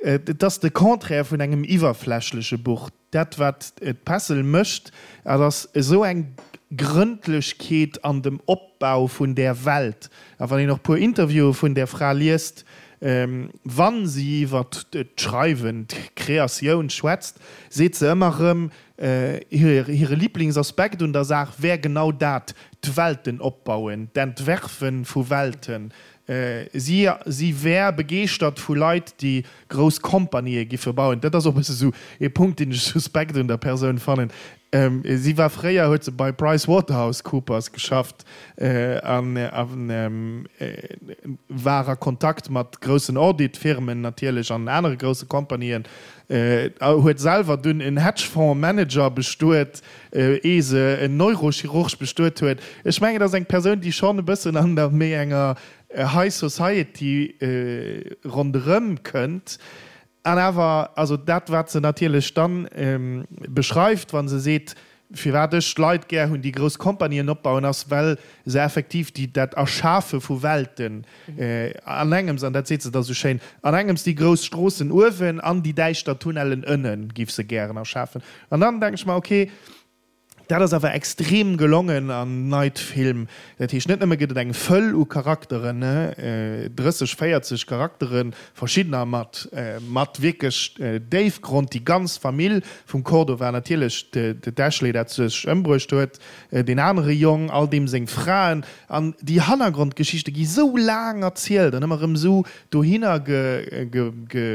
et ass de Contraire vun engem iwwerflächleche Buch. Dat wat d'Pessel mécht, dat ass esou eng Grëndlechkeet an dem Opbau vun där Welt. A wann een och puer Interviewe vun där Fra liest, wa si iwwer d'Schreiwen, d'Kreatioun schwätzt, seet se ëmmer erëm, hire Liblingsaspekt un der Saach wär genau dat, d'Welten opbauen, d'Entwerfe vu Welten, Si si wär begeeschtert vu Leit, déi grouss Kompanië giffe bauen. Dat ass och e bësse sou ee Punkt, deen ech suspekt un der Persoun fannen. Si war fréier, huet se bei PricewaterhouseCoopers geschafft a war a Kontakt mat groussen Audit-Firmen natierlech an anere grousse Kompanien. Huet selwer dunn en Hedgefonds-Manager bestuet. Ee se en Neurochirurg bestuet huet. Ech mengen, et ass eng Persoun, déi schonn e bëssen an der méi enger High Society ronderëm kënnt. An awer, also dat, wat se natierlech dann beschreift, wa se seet, firwat ech Leit gär hunn, déi grouss Kompanien opbauen, ass, well se effektiv déi, dat Erschafe vu Welten an engems, an dat seet se da sou schéin, an engems déi grouss Stroossen uewen an déi däischter Tunnellen ënnen, giff se gären erschafen. An dann denken ech mer, ok, dat ass awer extrem gelongen an Night Film. Dat heescht, net nëmme gëtt et eng Fëll u Charakteren, 30, 40 Charakteren, verschiddener mat mat wierklech Déifgrond, déi ganz Famill vum Cordova, natierlech d'Ashley, dat sech ëmbruecht huet, deen anere Jong, all deem seng Fraen, an déi Hannergrondgeschichte gi sou laang erzielt an ëmmer erëm esou dohinner ge, ge, ge,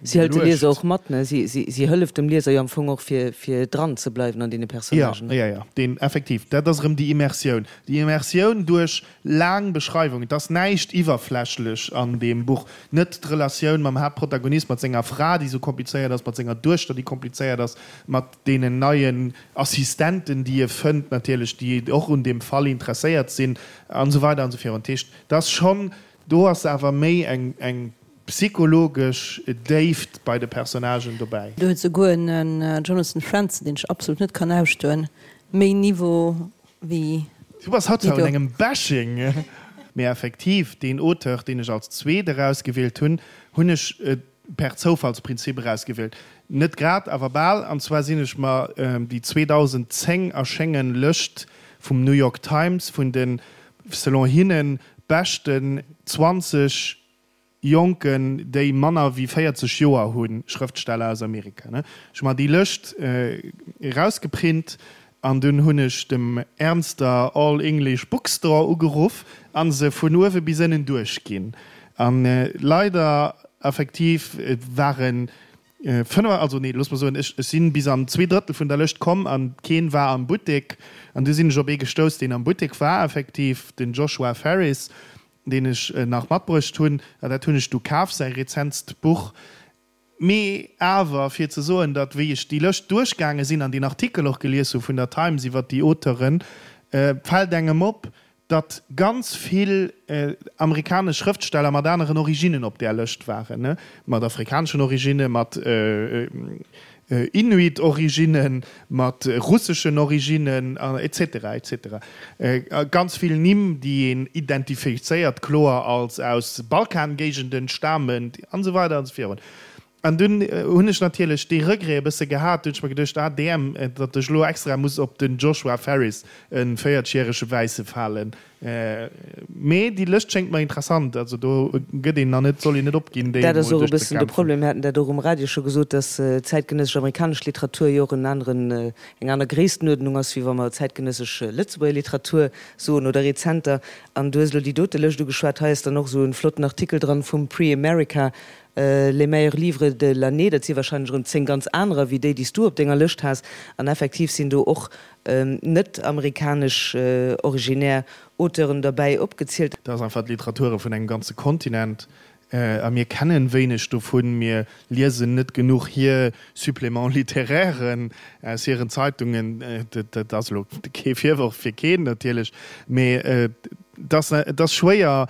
Si hëlt de Lieser och mat, ne? Si, si, si hëlleft dem Lieser jo am Fong och, fir, fir dran ze bleiwen an deene Personnagen. Ja, ja, ja, deen, effektiv, dat ass erëm déi Immersioun. Déi Immersioun duerch laang Beschreiwungen. Et ass näischt iwwerflächlech an deem Buch. Net d'Relatioun mam Haaptprotagonist, mat senger Fra, déi esou komplizéiert ass, mat senger Duechter, déi komplizéiert ass, mat deenen neien Assistenten, déi e fënnt natierlech, déi och un deem Fall interesséiert sinn, an esou weider an esou virun. Dat heescht, et ass schonn Do ass awer méi eng psychologesch Déift bei de Personnagen dobäi. Do huet souguer en Jonathan Franzen, deen ech absolut net kann ausstoen, méi Niveau wéi Du bass haut zwar un engem Bashing. Mee effektiv, deen Auteur, deen ech als zweet erausgewielt hunn, hunn ech per Zoufallsprinzip erausgewielt. Net grad, awer bal. An zwar sinn ech mer déi 2010 erschéngen Lëscht vum New York Times vun den, selon hinnen, beschten 20 Jonken, déi manner wéi 40 Joer hunn, Schrëftsteller aus Amerika. Ech hu mer déi Lëscht erausgeprint an dunn hunn ech dem Ernster All English Bookstore ugeruff a se vun uewe bis ënnen duerchginn. An leider effektiv waren 5, also nee, looss mer soen, ech sinn bis an 2/3 vun der Lëscht komm an keen war am Buttek. An du sinn ech op ee gestouss, deen am Buttek war, effektiv den Joshua Ferris, deen ech nach matbruecht hunn. An dat hunn ech du kaf, säi rezentst Buch. Mee awer fir ze soen, datt wéi ech déi Lëscht duerchgaange sinn an deen Artikel och gelies hu vun der Times iwwert déi Auteuren, fält engem op, datt ganz vill amerikanesch Schrëftsteller mat aneren Originnen op där Lëscht waren, mat afrikaneschen Originnen, mat Inuit-Originnen, mat russeschen Originnen, et cetera, et cetera. Ganz vill Nimm, déi een identifizéiert kloer als aus Balkangéigenden stamend, an esou weider an esou virun. An dunn hunn ech natierlech dee Regret e bësse gehat, dunn hunn ech mer geduecht, ah damn, datt ech elo extra muss op den Joshua Ferris, e 40 järege Wäisse falen. Mee déi Lëscht schéngt mer interessant, also do gëtt een nach net, soll een net opginn, déi Dat ass emol och e bëssen de duerchzekämpfen. Problem. Mir haten dat och um Radio scho gesot, datt zäitgenëssesch amerikanesch Literatur jo och en aneren, eng aner Gréisstenuerdnung ass, wéi wa mer zäitgenëssesch Lëtzebuerger Literatur soen oder rezenter. An du hues elo déi dote Lëscht ugeschwat, hei ass dann och esou e flotten Artikel dran vum Prix America, Les meilleurs livres de l'année, dat si wahrscheinlech erëm 10 ganz anerer wéi déi, déi s du op denger Lëscht has. An effektiv sinn do och. net amerikanesch originär Auteuren derbäi opgezielt. Dat ass einfach d'Literature vun engem ganze Kontinent a mir kennen wéineg dovun. Mir liesen net genuch hir Suppléments littéraires aus hiren Zeitungen. Dat ass elo kee Virworf fir keen natierlech, mee et ass schwéier,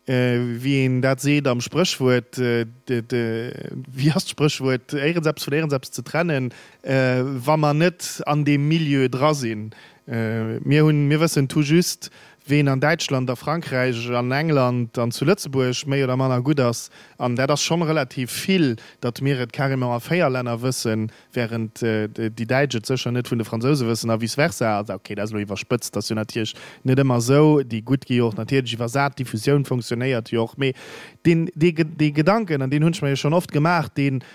wéi een dat seet am Spréchwuert, wéi ass d'Spréchwuert, éierens eppes vun éierens eppes ze trennen, wa mer net an deem Milieu dra sinn. Mir hunn, mir wëssen tout juste, ween an Däitschland, a Frankräich, an England an zu Lëtzebuerg méi oder manner gutt ass. An dat ass schonn relativ vill, datt mir et carrément a 4 Länner wëssen, während déi Däitsch et sécher net vun de Fransouse wëssen a vice versa. Also okay, dat ass elo iwwerspëtzt, dat ass jo natierlech net ëmmer esou. Déi gutt gi jo och natierlech iwwersat, d'Diffusioun funktionéiert jo och. Mee deen, dee, dee Gedanken, an deen hunn ech mer jo schonn oft gemaach, deen,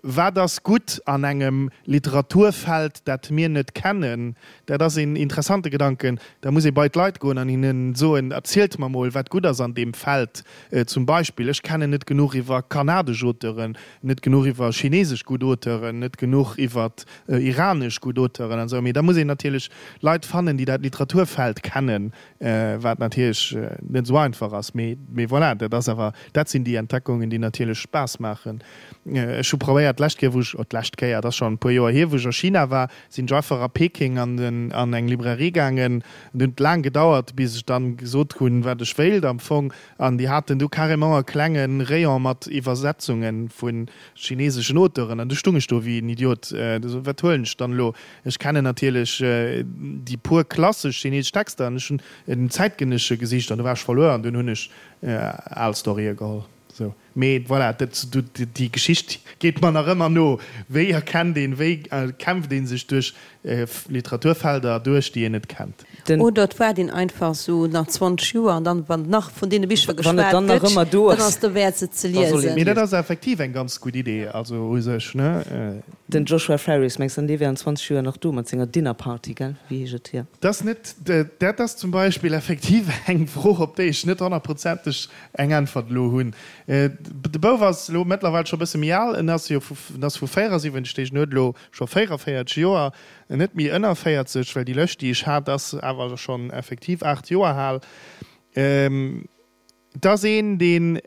Wat ass gutt an engem Literaturfeld, dat mir net kennen? Dat ass een interessante Gedanken. Da muss ee bei d'Leit goen an hinnen soen, Erzielt mer mol, wat gutt ass an deem Feld. Zum Beispill, ech kennen net genuch iwwer kanadesch Auteuren, net genuch iwwer chinesesch gutt Auteuren, net genuch iwwer iranesch gutt Auteuren an esou. Mee da muss een natierlech Leit fannen, déi dat Literaturfeld kennen, wat natierlech net esou einfach ass. Mee, mee voilà, dat ass awer, dat sinn déi Entdeckungen, déi natierlech Spaass maachen. Ech hu probéiert d'lescht Kéier, wou ech, oh d'lescht Kéier, et ass schonn e puer Joer hier, wou ech a China war, sinn ech einfach a Peking an den, an eng Librairie gaangen. Et huet laang gedauert, bis ech dann gesot hunn, wat ech wéilt am Fong. An déi haten du carrément e klenge Rayon mat Iwwersetzunge vu chineseschen Auteuren. An du stung ech do wéi en Idiot. Wat huelen ech dann elo? Ech kennen natierlech déi puer klassesch chinesesch Texter an ech hunn en zäitgenëssesche gesicht an du war ech verluer an dunn hunn ech al Storye geholl. Sou. Mee voilà, dat, déi Geschicht geet mer nach ëmmer no. Wéi erkennt een, wéi kämpft ee sech duerch Literaturfelder duerch, déi een net kennt? Den. Oder et waart een einfach sou nach 20 Joer an dann, wann nach vun deene Bicher geschwat gëtt, dann ass derwäert se ze liesen. Mee dat ass effektiv eng ganz gutt Idee, also u sech, ne? Den Joshua Ferris, mengs de, dee wär an 20 Joer nach do mat senger Dinner Party, gell? Wéi heescht et hier? Dat ass net, dat ass zum Beispill effektiv eng Fro, op déi ech net honnertprozenteg eng Äntwert elo hunn. De Bouf ass elo mëttlerweil scho e bësse méi al, en ass jo vu, en ass vu 74, deeg, en huet elo scho 44 Joer, net méi ënner 40, well déi lëscht, déi ech hat, ass awer schonn effektiv 8 Joer al. Et ass een, deen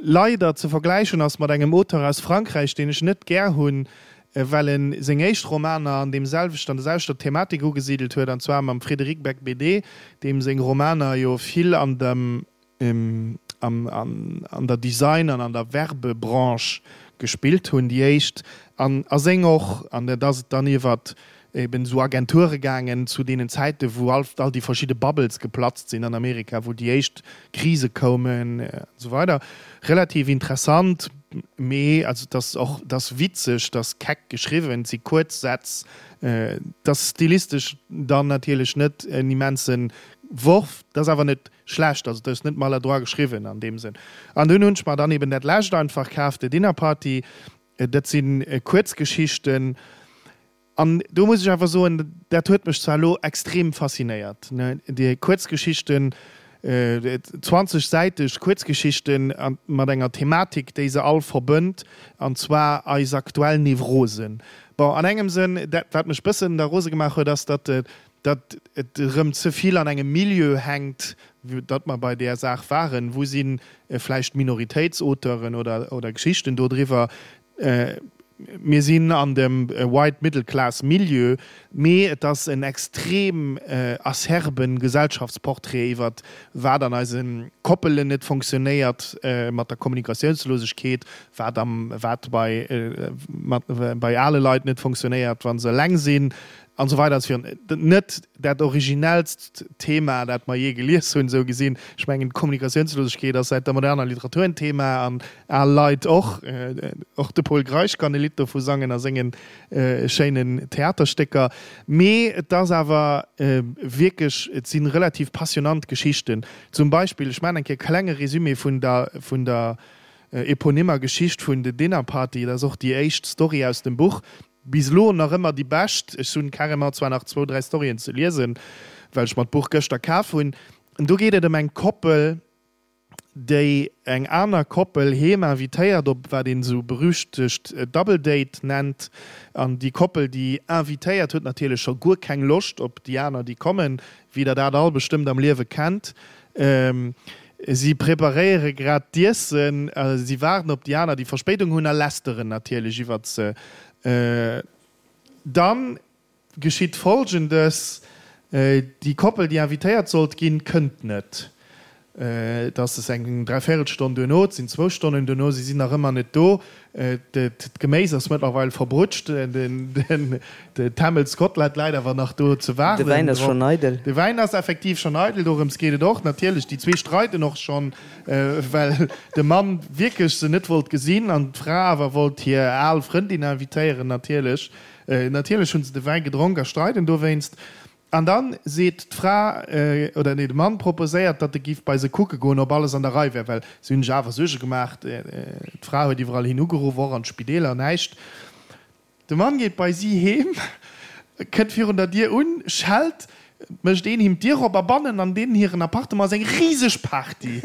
leider ze vergläichen ass mat engem Auteur aus Frankräich, deen ech net gär hunn, well en seng éischt Romaner an deem selwechten, an der selwechter Thematik ugesidelt huet, an zwar mam Frédéric Becbédé, deem seng Romaner jo vill an dem, am, an der Design an an der Werbebranche gespillt hunn, déi éischt, an a seng och, an dat ass et dann iwwert eben esou Agenture gaangen zu deenen Zäiten, wou all all déi verschidde Bubbles geplatzt sinn an Amerika, wou déi éischt Krise koumen an esou weider. Relativ interessant, mee also et ass och, et ass witzeg, et ass keck geschriwwen, et si kuerz Sätz, et ass stilistesch dann natierlech net en immense Worf, et ass awer net schlecht, also et ass net maladroit geschriwwen an deem Sënn. An dunn hunn ech mer dann eben dat lescht einfach kaf, The Dinner Party, dat si Kuerzgeschichten. An do muss ech awer soen, dat huet mech zwar elo extrem faszinéiert, déi Kuerzgeschichten, 20 säiteg Kuerzgeschichten mat enger Thematik, déi se all verbënnt, an zwar eis aktuell Nevrosen. Bon, an engem Sënn, dat wat mech bëssen da rose gemaach huet, ass, datt datt et erëm ze vill an engem Milieu hänkt, datt mer bei där Saach waren, wou si vläicht Minoritéitsauteuren oder oder Geschichten dodriwwer, Mir sinn an dem white middle class Milieu, mee et ass en extrem acerben Gesellschaftsportrait iwwert wat an eise Koppelen net fonctionnéiert mat der Kommunikatiounslosegkeet, wat am wat bei bei ale Leit net fonctionnéiert wa se eleng sinn an esou weider an esou virun. Net dat originellst Thema, dat mer jee gelies hunn, esou gesinn. Ech mengen, d'Kommunikatiounslosegkeet ass säit der moderner Literatur en Thema, an al Leit och. Och de Pol Greisch kann e Lidd dovu sangen a sengen schéinen Theaterstécker. Mee et ass awer wierklech, et si relativ passionant Geschichten. Zum Beispill, ech maachen eng Kéier e klenge Résumé vun der, vun der eponymer Geschicht vun The Dinner Party, dat ass och déi éischt Story aus dem Buch. Bis elo nach ëmmer déi bescht. Ech hunn carrément zwar nach zwou, dräi Storyen ze liesen, well ech mer d'Buch gëschter kaf hunn. Do geet et ëm eng Koppel, déi eng aner Koppel heem invitéiert op wat een esou berüchtegt Double Date nennt. An déi Koppel, déi invitéiert, huet natierlech scho guer keng Loscht op déi aner, déi kommen, wéi der dat all bestëmmt am Liewe kennt. Si preparéiere grad d'Iessen, si waarden op déi aner, déi Verspéidung hunn a lästeren natierlech iwwert se. Dann geschitt Folgendes, Déi Koppel, déi invitéiert sollt ginn, kënnt net. Et ass eng Dräivéierelstonn duerno, et sinn zwou Stonnen duerno, si sinn nach ëmmer net do. D'Geméis ass mëttlerweil verbrutscht, den Temmels-Kotlett läit awer nach do ze waarden. De Wäin ass schonn eidel. De Wäin ass effektiv schonn eidel, dorëms geet et och natierlech. Déi zwee streiden och schonn, well de Mann wierklech se net wollt gesinn an d'Fra awer wollt hir al Frëndin invitéieren natierlech. Natierlech hunn se de Wäi gedronk a streiden dowéinst. An dann seet d'Fra, oder nee, de Mann proposéiert, datt e giff bei se kucke goen, ob alles an der Rei wär, well si hunn sech awer Suerge gemaach. D'Fra huet iwwerall hin ugeruff, och an d'Spideeler, näischt. De Mann geet bei si heem, kënnt virun der Dier un, schellt, Et mécht een him d'Dier op a bannen an deenen hiren Appartement ass eng riseg Party.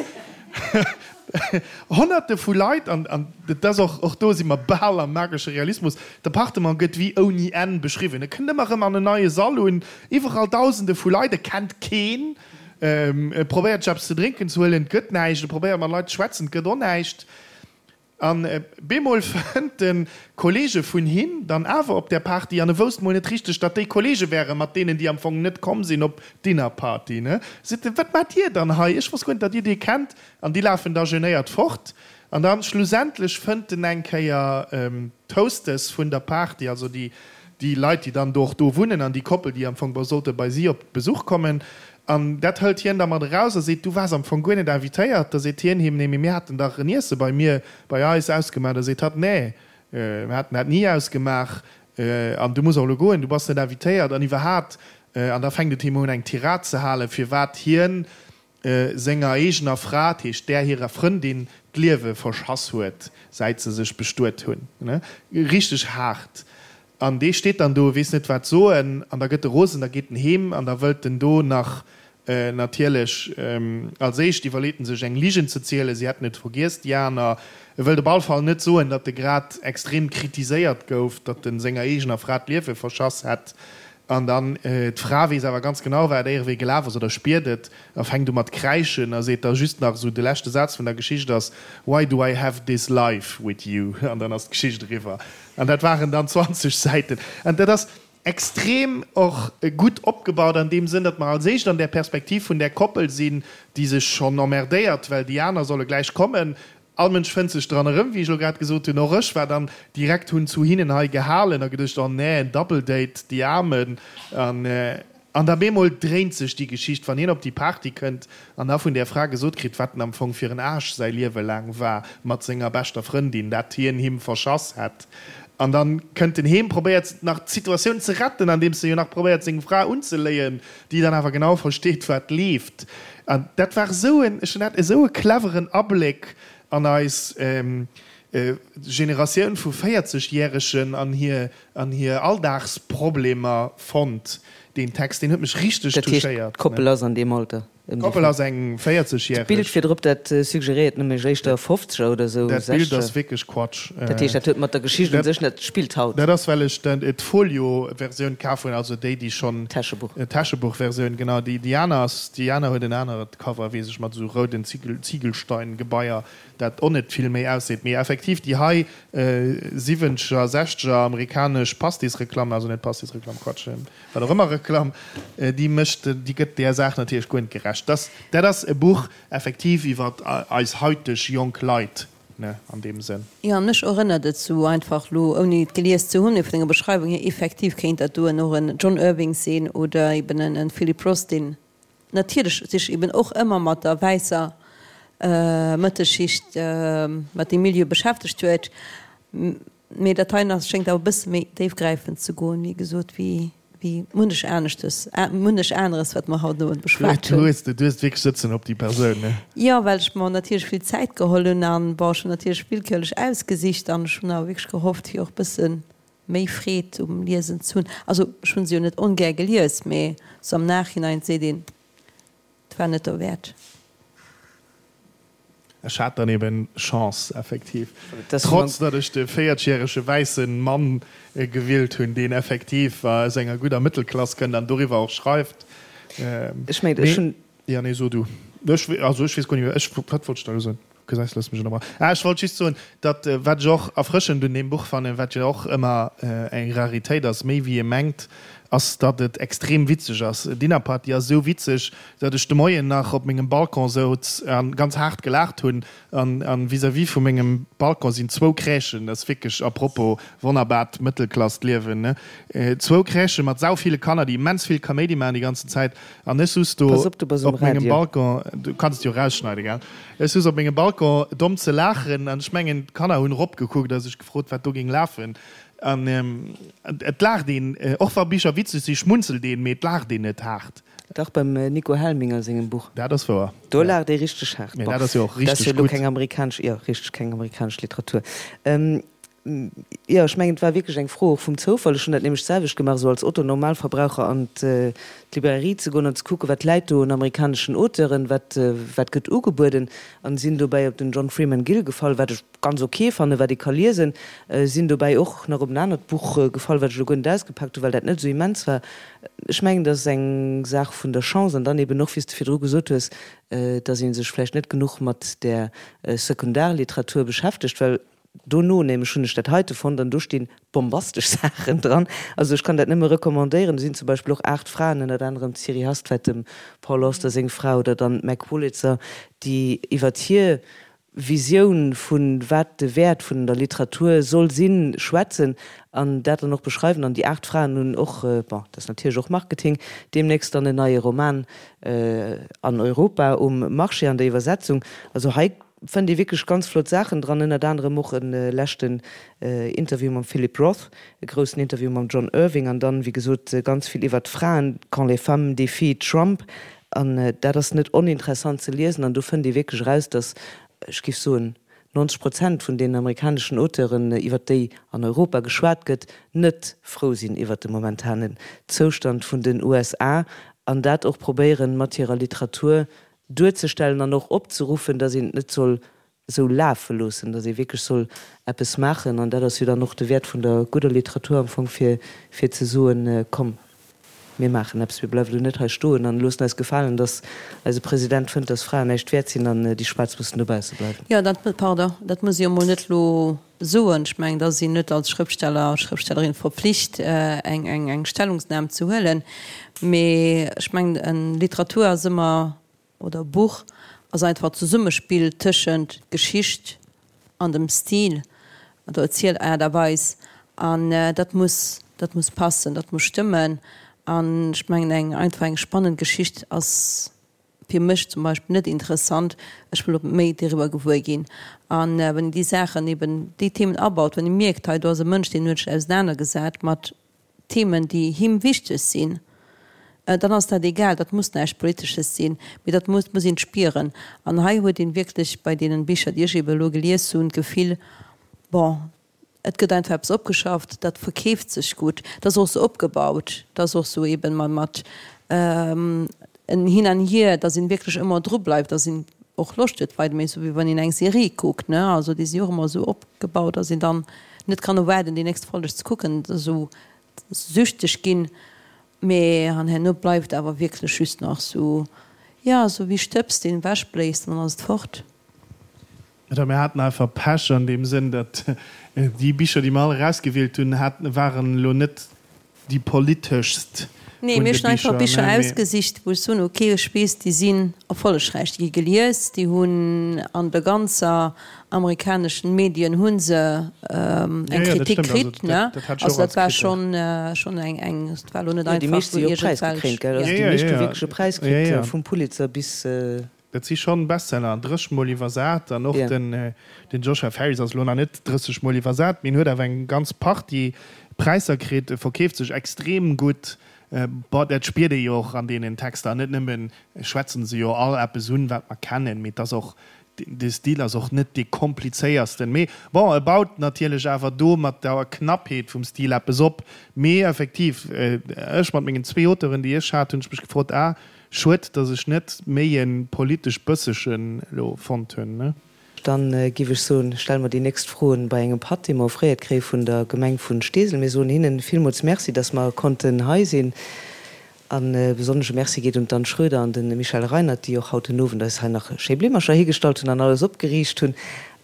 Honnerte vu Leit, an an et ass och, och do si mer bal am magesche Realismus, d'Appartement gëtt wéi ouni Enn beschriwwen. E kënnt ëmmer erëm an en neie Sall un, iwwerall Dausende vu Leit, e kennt keen, e probéiert sech eppes ze drénken ze huelen, et gëtt näischt, e probéiert mat Leit ze schwätzen, et gëtt och näischt. An bemol fënnt en Kollege vun him dann awer op där Party, an e wousst mol net richteg, datt déi Kollege wären, mat deenen déi am Fong net komm sinn op d'Dinnerparty, ne? Seet en, Wat maacht dir dann hei? Ech wosst guer net, datt dir dee kennt. An déi lafen da genéiert fort. An dann schlussendlech fënnt en eng Kéier d'Hostess vun der Party, also déi déi Leit, déi dann do och do wunnen, an déi Koppel, déi am Fong sollte bei si op Besuch kommen. An dat hëlt hien da mat eraus a seet, Du waars am Fong guer net invitéiert. Da seet hien him, Nee, mee mir haten dach en Iesse bei mir, bei eis ausgemaach. Da seet hatt, Nee, mir haten dat ni ausgemaach. An du muss och elo goen, du bass net invitéiert. An iwwerhaapt, an da fänkt et him un, eng Tirad ze halen, firwat hien senger eegener Fra, dat heescht där hirer Frëndin, d'Liewe verschass huet, säit se sech bestuet hunn. Richteg haart. An dee steet dann do, weess net wat soen, an da gëtt e rosen, da geet en heem an da wëllt en do nach natierlech, als éischt iwwerleet en sech eng Ligen ze zielen, si hätten et vergiess, déi aner. E wëllt op all Fall net soen, datt e grad extrem kritiséiert gouf, datt en senger eegener Fra d'Liewe verschass hätt. An dann, d'Fra weess awer ganz genau, wat éierewéi gelaf ass, oder spiert et, a fänkt u mat kräischen a seet da just nach esou, de leschte Saz vun der Geschicht ass, Why do I have this life with you? An dann ass d'Geschicht eriwwer. An dat waren dann 20 Säiten. An dat ass extrem och gutt opgebaut an deem Sënn, datt mer als éischt an där Perspektiv vun där Koppel sinn, déi sech schonn emmerdéiert, well déi aner solle gläich kommen. All Mënsch fënnt sech dran erëm, wéi ech elo grad gesot hunn. Och ech war dann direkt, hunn zu hinnen hei gehalen a geduecht, oh nee, en Double Date, déi Aarmen. An An da bemol dréint sech déi Geschicht, wann hien op déi Party kënnt an da vun där Fra gesot kritt, wat en am Fong fir en Aarsch säi Liewe laang war mat senger beschter Frëndin, dat hien him verschass hätt. An dann kënnt en heem, probéiert nach d'Situatioun ze retten, andeems e jo nach probéiert seng Fra unzeléien, déi dann awer genau versteet, wat leeft. An dat war esou en, ech hunn dat esou e cleveren Abléck an eis Generatioun vu 40 Järegen an hir An hir Alldagsproblemer fonnt. Deen Text, deen huet mech richteg Dat heescht, touchéiert. d'Koppel ass an deem Alter? Ëm déi D'Koppel ass eng 40 D'Bild järeg. virdrop, dat suggeréiert nämlech éischter Fofzeger oder esou, Dat Bild ass Sechzeger. wierklech Quatsch. Dat heescht, dat huet mat der Geschicht un sech net, spillt haut. Dat ass, well ech d'Folio-Versioun kaf hunn, also déi, déi schonn. D'Täschebuch. D'Täschebuch-Versioun, genau. Déi, déi aner ass, déi aner huet en anert Cover, weess ech, mat esou rouden Zigel, Ziegelstein-Gebaier. Dat och net vill méi ausseet. Mee effektiv déi hei siwwenzeger, sechzeger amerikanesch Pastisreklamm, also net Pastisreklamm, Quatsch, wat och ëmmer Reklamm, déi mécht, déi gëtt där Saach natierlech guer net gerecht. Dass, dat ass e Buch effektiv iwwer eis haiteg jonk Leit, ne, an deem Sënn. Jo, mech erënnert et sou einfach lo, ouni et gelies ze hunn, mee vun denger Beschreiwung hier, effektiv kéint dat doen och en John Irving sinn oder eben en Philip Roth, deen natierlech sech eben och ëmmer mat der wäisser Mëttelschicht, mat deem Milieu beschäftegt huet. Mee dat heien ass, schéngt awer e bësse méi déifgräifend ze goen, wéi gesot, wéi munnech aneschtes, munnech aneres, wat mer haut den Owend beschwat hunn. Du hues wierklech sëtzen op déi Persoun, ne? Jo, well ech mer natierlech vill Zäit geholl hunn an, bon, ech hunn natierlech willkürlech ausgesicht an ech hunn awer wierklech gehofft, fir och e bësse méi Freed um Liesen ze hunn. Also ech hunn se jo net ongär gelies, mee sou am Nachhinein seet een, et war net derwäert. Ech hat dann eben Chance, effektiv. Trotz datt ech de véierzegjärege wäisse Mann gewielt hunn, deen effektiv aus enger gudder Mëttelklass kënnt an doriwwer och schreift. Ech mengen, ech hunn. Jo, nee, so du. Ech, also ech weess guer net méi, ech, wat wollt ech da elo soen? Gesäis, looss mech ënnerbrach. Ah, ech wollt just soen, datt, wat ech och erfrëschend un deem Buch fannen, wat jo och ëmmer eng Raritéit ass, méi wéi ee mengt, ass, datt et extrem witzeg ass. Dinner Party ass esou witzeg, datt ech de Moien nach op mengem Balcon souz a ganz haart gelaacht hunn. An, an vis-à-vis vu mengem Balcon sinn zwou Crèchen, dat ass wierklech, à propos, wonnerbart Mëttelklassliewen, ne, zwou Crèchë mat sau ville Kanner, déi immens vill Kaméidi maachen déi ganzen Zäit. An ech souz do Pass op, du bass um op mengem Radio. Balcon, du kanns et jo erausschneiden, gell? Ech souz op mengem Balcon domm ze laachen an ech mengen, d'Kanner hunn eropgekuckt a sech gefrot, wat do géing lafen. An et laacht een, och wa Bicher witzeg sinn, schmunzelt een, mee et laacht een net haart. Dach, beim Nico Helminger sengem Buch. Dat ass wouer, Do laacht ee richteg haart. Mee dat ass jo och Dat ass richteg jo elo gutt. keng amerikanesch, jo, richteg, keng amerikanesch Literatur. Jo, ech mengen, et war wierklech eng Fro och vum Zoufall. Ech hunn dat nämlech d'selwecht gemaach, esou als Otto-Normalverbraucher an d'Librairie ze goen an ze kucken, wat läit do un amerikaneschen Auteuren, wat, wat gëtt ugebueden, an sinn dobäi op den John Freeman Gill gefall, wat ech ganz ok fannen, wat ee ka liesen. Sinn dobäi och nach op en anert Buch gefall, wat ech elo guer net ausgepaakt hunn, well dat net esou immens war. Ech mengen, dat ass eng Saach vun der Chance an dann eben och, wéi s de virdru gesot hues, dass ee sech vläicht net genuch mat där Sekundarliteratur beschäftegt, well Dono nämlech hunn ech dat heite fonnt an do stinn bombastesch Saachen dran. Also ech kann dat nëmme recommandéieren. Do sinn zum Beispill och 8 Fraen, ënnert anerem d'Siri Hustvedt, dem Paul Auster seng Fra, oder dann d'Meg Wolitzer, déi iwwert hir Visioun vu wat de Wäert vun der Literatur soll sinn, schwätzen an dat dann och beschreiwen. An déi 8 Fraen hunn och, bon, dat ass natierlech och Marketing, deemnächst dann en neie Roman an Europa um Marché an der Iwwersetzung. Also hei Fënnt ee wierklech ganz flott Saachen dran, ënnert anerem och e leschten Interview mam Philip Roth, e groussen Interview mam John Irving an dann, wéi gesot, ganz vill iwwert d'Fraen, Quand les femmes défient Trump. An dat ass net oninteressant ze liesen an do fënnt ee wierklech eraus, datt, ech géif soen, 90 Prozent vun deenen amerikaneschen Auteuren, iwwert déi an Europa geschwat gëtt, net frou sinn iwwert de momentanen Zoustand vun den USA an dat och probéieren, mat hirer Literatur duerzestellen an och opzeruffen, datt een et net soll esou lafe loossen, datt ee wierklech soll eppes maachen. An dat ass jo dann och de Wäert vun der gudder Literatur am Fong, fir fir ze soen, komm mir maachen eppes, mir bleiwe lo net hei stoen an loossen eis gefalen, datt eise President fënnt, datt Fraen näischt wäert sinn an déi Schwaarz mussen dobausse bleiwen. Jo, dat, pardon, dat muss ee jo emol net elo soen. Ech mengen, da sinn net als Schrëftsteller, Schrëftstellerin verpflicht, eng, eng, eng Stellungsnam ze huelen. Mee ech mengen, en Literatur ass ëmmer, oder e Buch ass einfach d'Zesummespill tëschent Geschicht an dem Stil, der Erzielaart a Weis. An dat muss, dat muss passen, dat muss stëmmen. An ech mengen, eng einfach eng spannend Geschicht ass fir mech zum Beispill net interessant, ech wëll och méi doriwwer gewuer ginn. An wann een déi Saachen eben, déi Themen abaut, wann ee mierkt, hei do ass e Mënsch, deen huet sech ausenanergesat mat Themen, déi him wichteg sinn, dann ass dat egal, dat muss näischt Politesches sinn, mee dat muss muss een spieren. An hei huet een wierklech bei deenen Bicher, déi ech eben elo gelies hunn, d'Gefill, bon, Et gëtt einfach eppes opgeschafft, dat verkeeft sech gutt. Dat ass och esou opgebaut, dat ass och esou eben mat en Hin an Hier, datt een wierklech ëmmer dru bleift, datt een och Loscht huet weider, méi esou wéi wann een eng Serie kuckt, ne. Also déi si och ëmmer esou opgebaut, datt een dann net kann erwaarden déi nächst Folleg ze kucken, esou süchteg ginn. Mee an herno bleift awer wierklech just nach esou, jo, esou wéi Stëbs, deen ewechbléist an dann ass et fort. Oder mir haten einfach Pech an deem Sënn, datt déi Bicher, déi mer all erausgewielt hunn, haten, waren elo net déi politeschst Nee, vun mir de hunn einfach Bicher, Bicher ne, mee. ausgesicht, wou ech soen, okay, ech weess, déi sinn erfollegräich, déi gi gelies, déi hunn an der ganzer amerikaneschen Medien hu se eng Jo, jo, dat Kritik stëmmt. Also kritt, ne. dat, dat hat ech Also och als dat war Kritik. schonn, schonn eng, eng, et war elo net Jo, déi einfach meescht sou si jo och iergendwelch, präisgekréint, gell? ja. Also Jo, déi jo, meescht hu jo, wierklech e Präis jo, kritt, jo. vum Pulitzer bis. Dat si schonn Bestseller an 30 mol iwwersat. An och den Joshua Ferris ass elo nach net 30 mol iwwersat, mee en huet awer eng ganz Partie Präisser kritt. E verkeeft sech extrem gutt. Bon, dat spiert ee jo och an deenen Texter. An net nëmmen schwätzen se jo all eppes un, wat mer kennen, mee et ass och, de Stil ass och net dee komplizéiersten. Mee bon, e baut natierlech awer do mat der Knappheet vum Stil eppes op. Mee effektiv, ech mat mengen zwee Auteuren, déi ech hat, hunn ech mech gefrot, ah, Schued dass ech net méi en politesch bëssegen elo fonnt hunn. Dann giff ech soen, stelle mer déi nächst Froen bei engem Patt, dee mer offréiert kréie vun der Gemeng vun Steesel. Mir soen hinnen villmools Merci, dass mer konnten hei sinn. An e besonnesche Merci geet un d'Anne Schroeder an de Michel Reinert, déi och haut den Owend eis hei nach schéi Blimmercher higestallt hunn an alles opgeriicht hunn.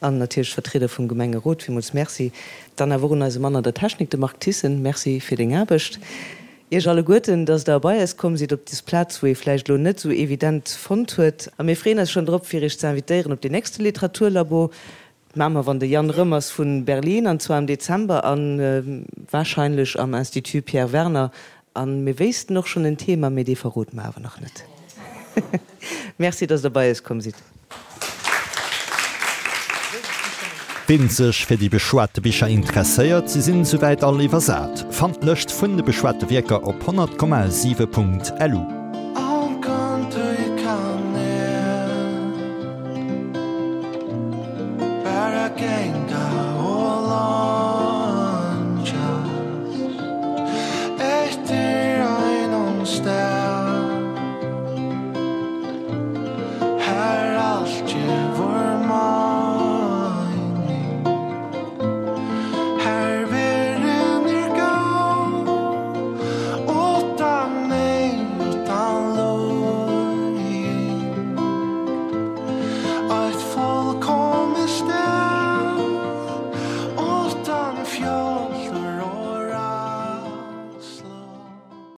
An natierlech d'Vertrieder vum Gemengerot, villmools Merci. Dann awer och un eise Mann an der Technik, de Marc Thyssen, Merci fir deng Aarbecht. Iech alleguerten, dass Der bei eis komm sidd op des Plaz, wou ee vläicht elo net esou evident fonnt huet. A mir freeën eis schonn drop, fir Iech ze invitéieren op deen nächste Literaturlabo. Dat maache mer, wann de Yann rëm ass vu Berlin, an zwar am Dezember a warscheinlech am Institut Pierre Werner. A mir wéissten och schonn en Thema, mee dee verrode mer awer nach net. Merci, dass Der bei eis komm sidd. Ween sech fir déi beschwate Bicher interesséiert, se sinn souwäit all iwwersat. Fannt d'Lëscht vun de beschwate Wierker op 100,7.lu.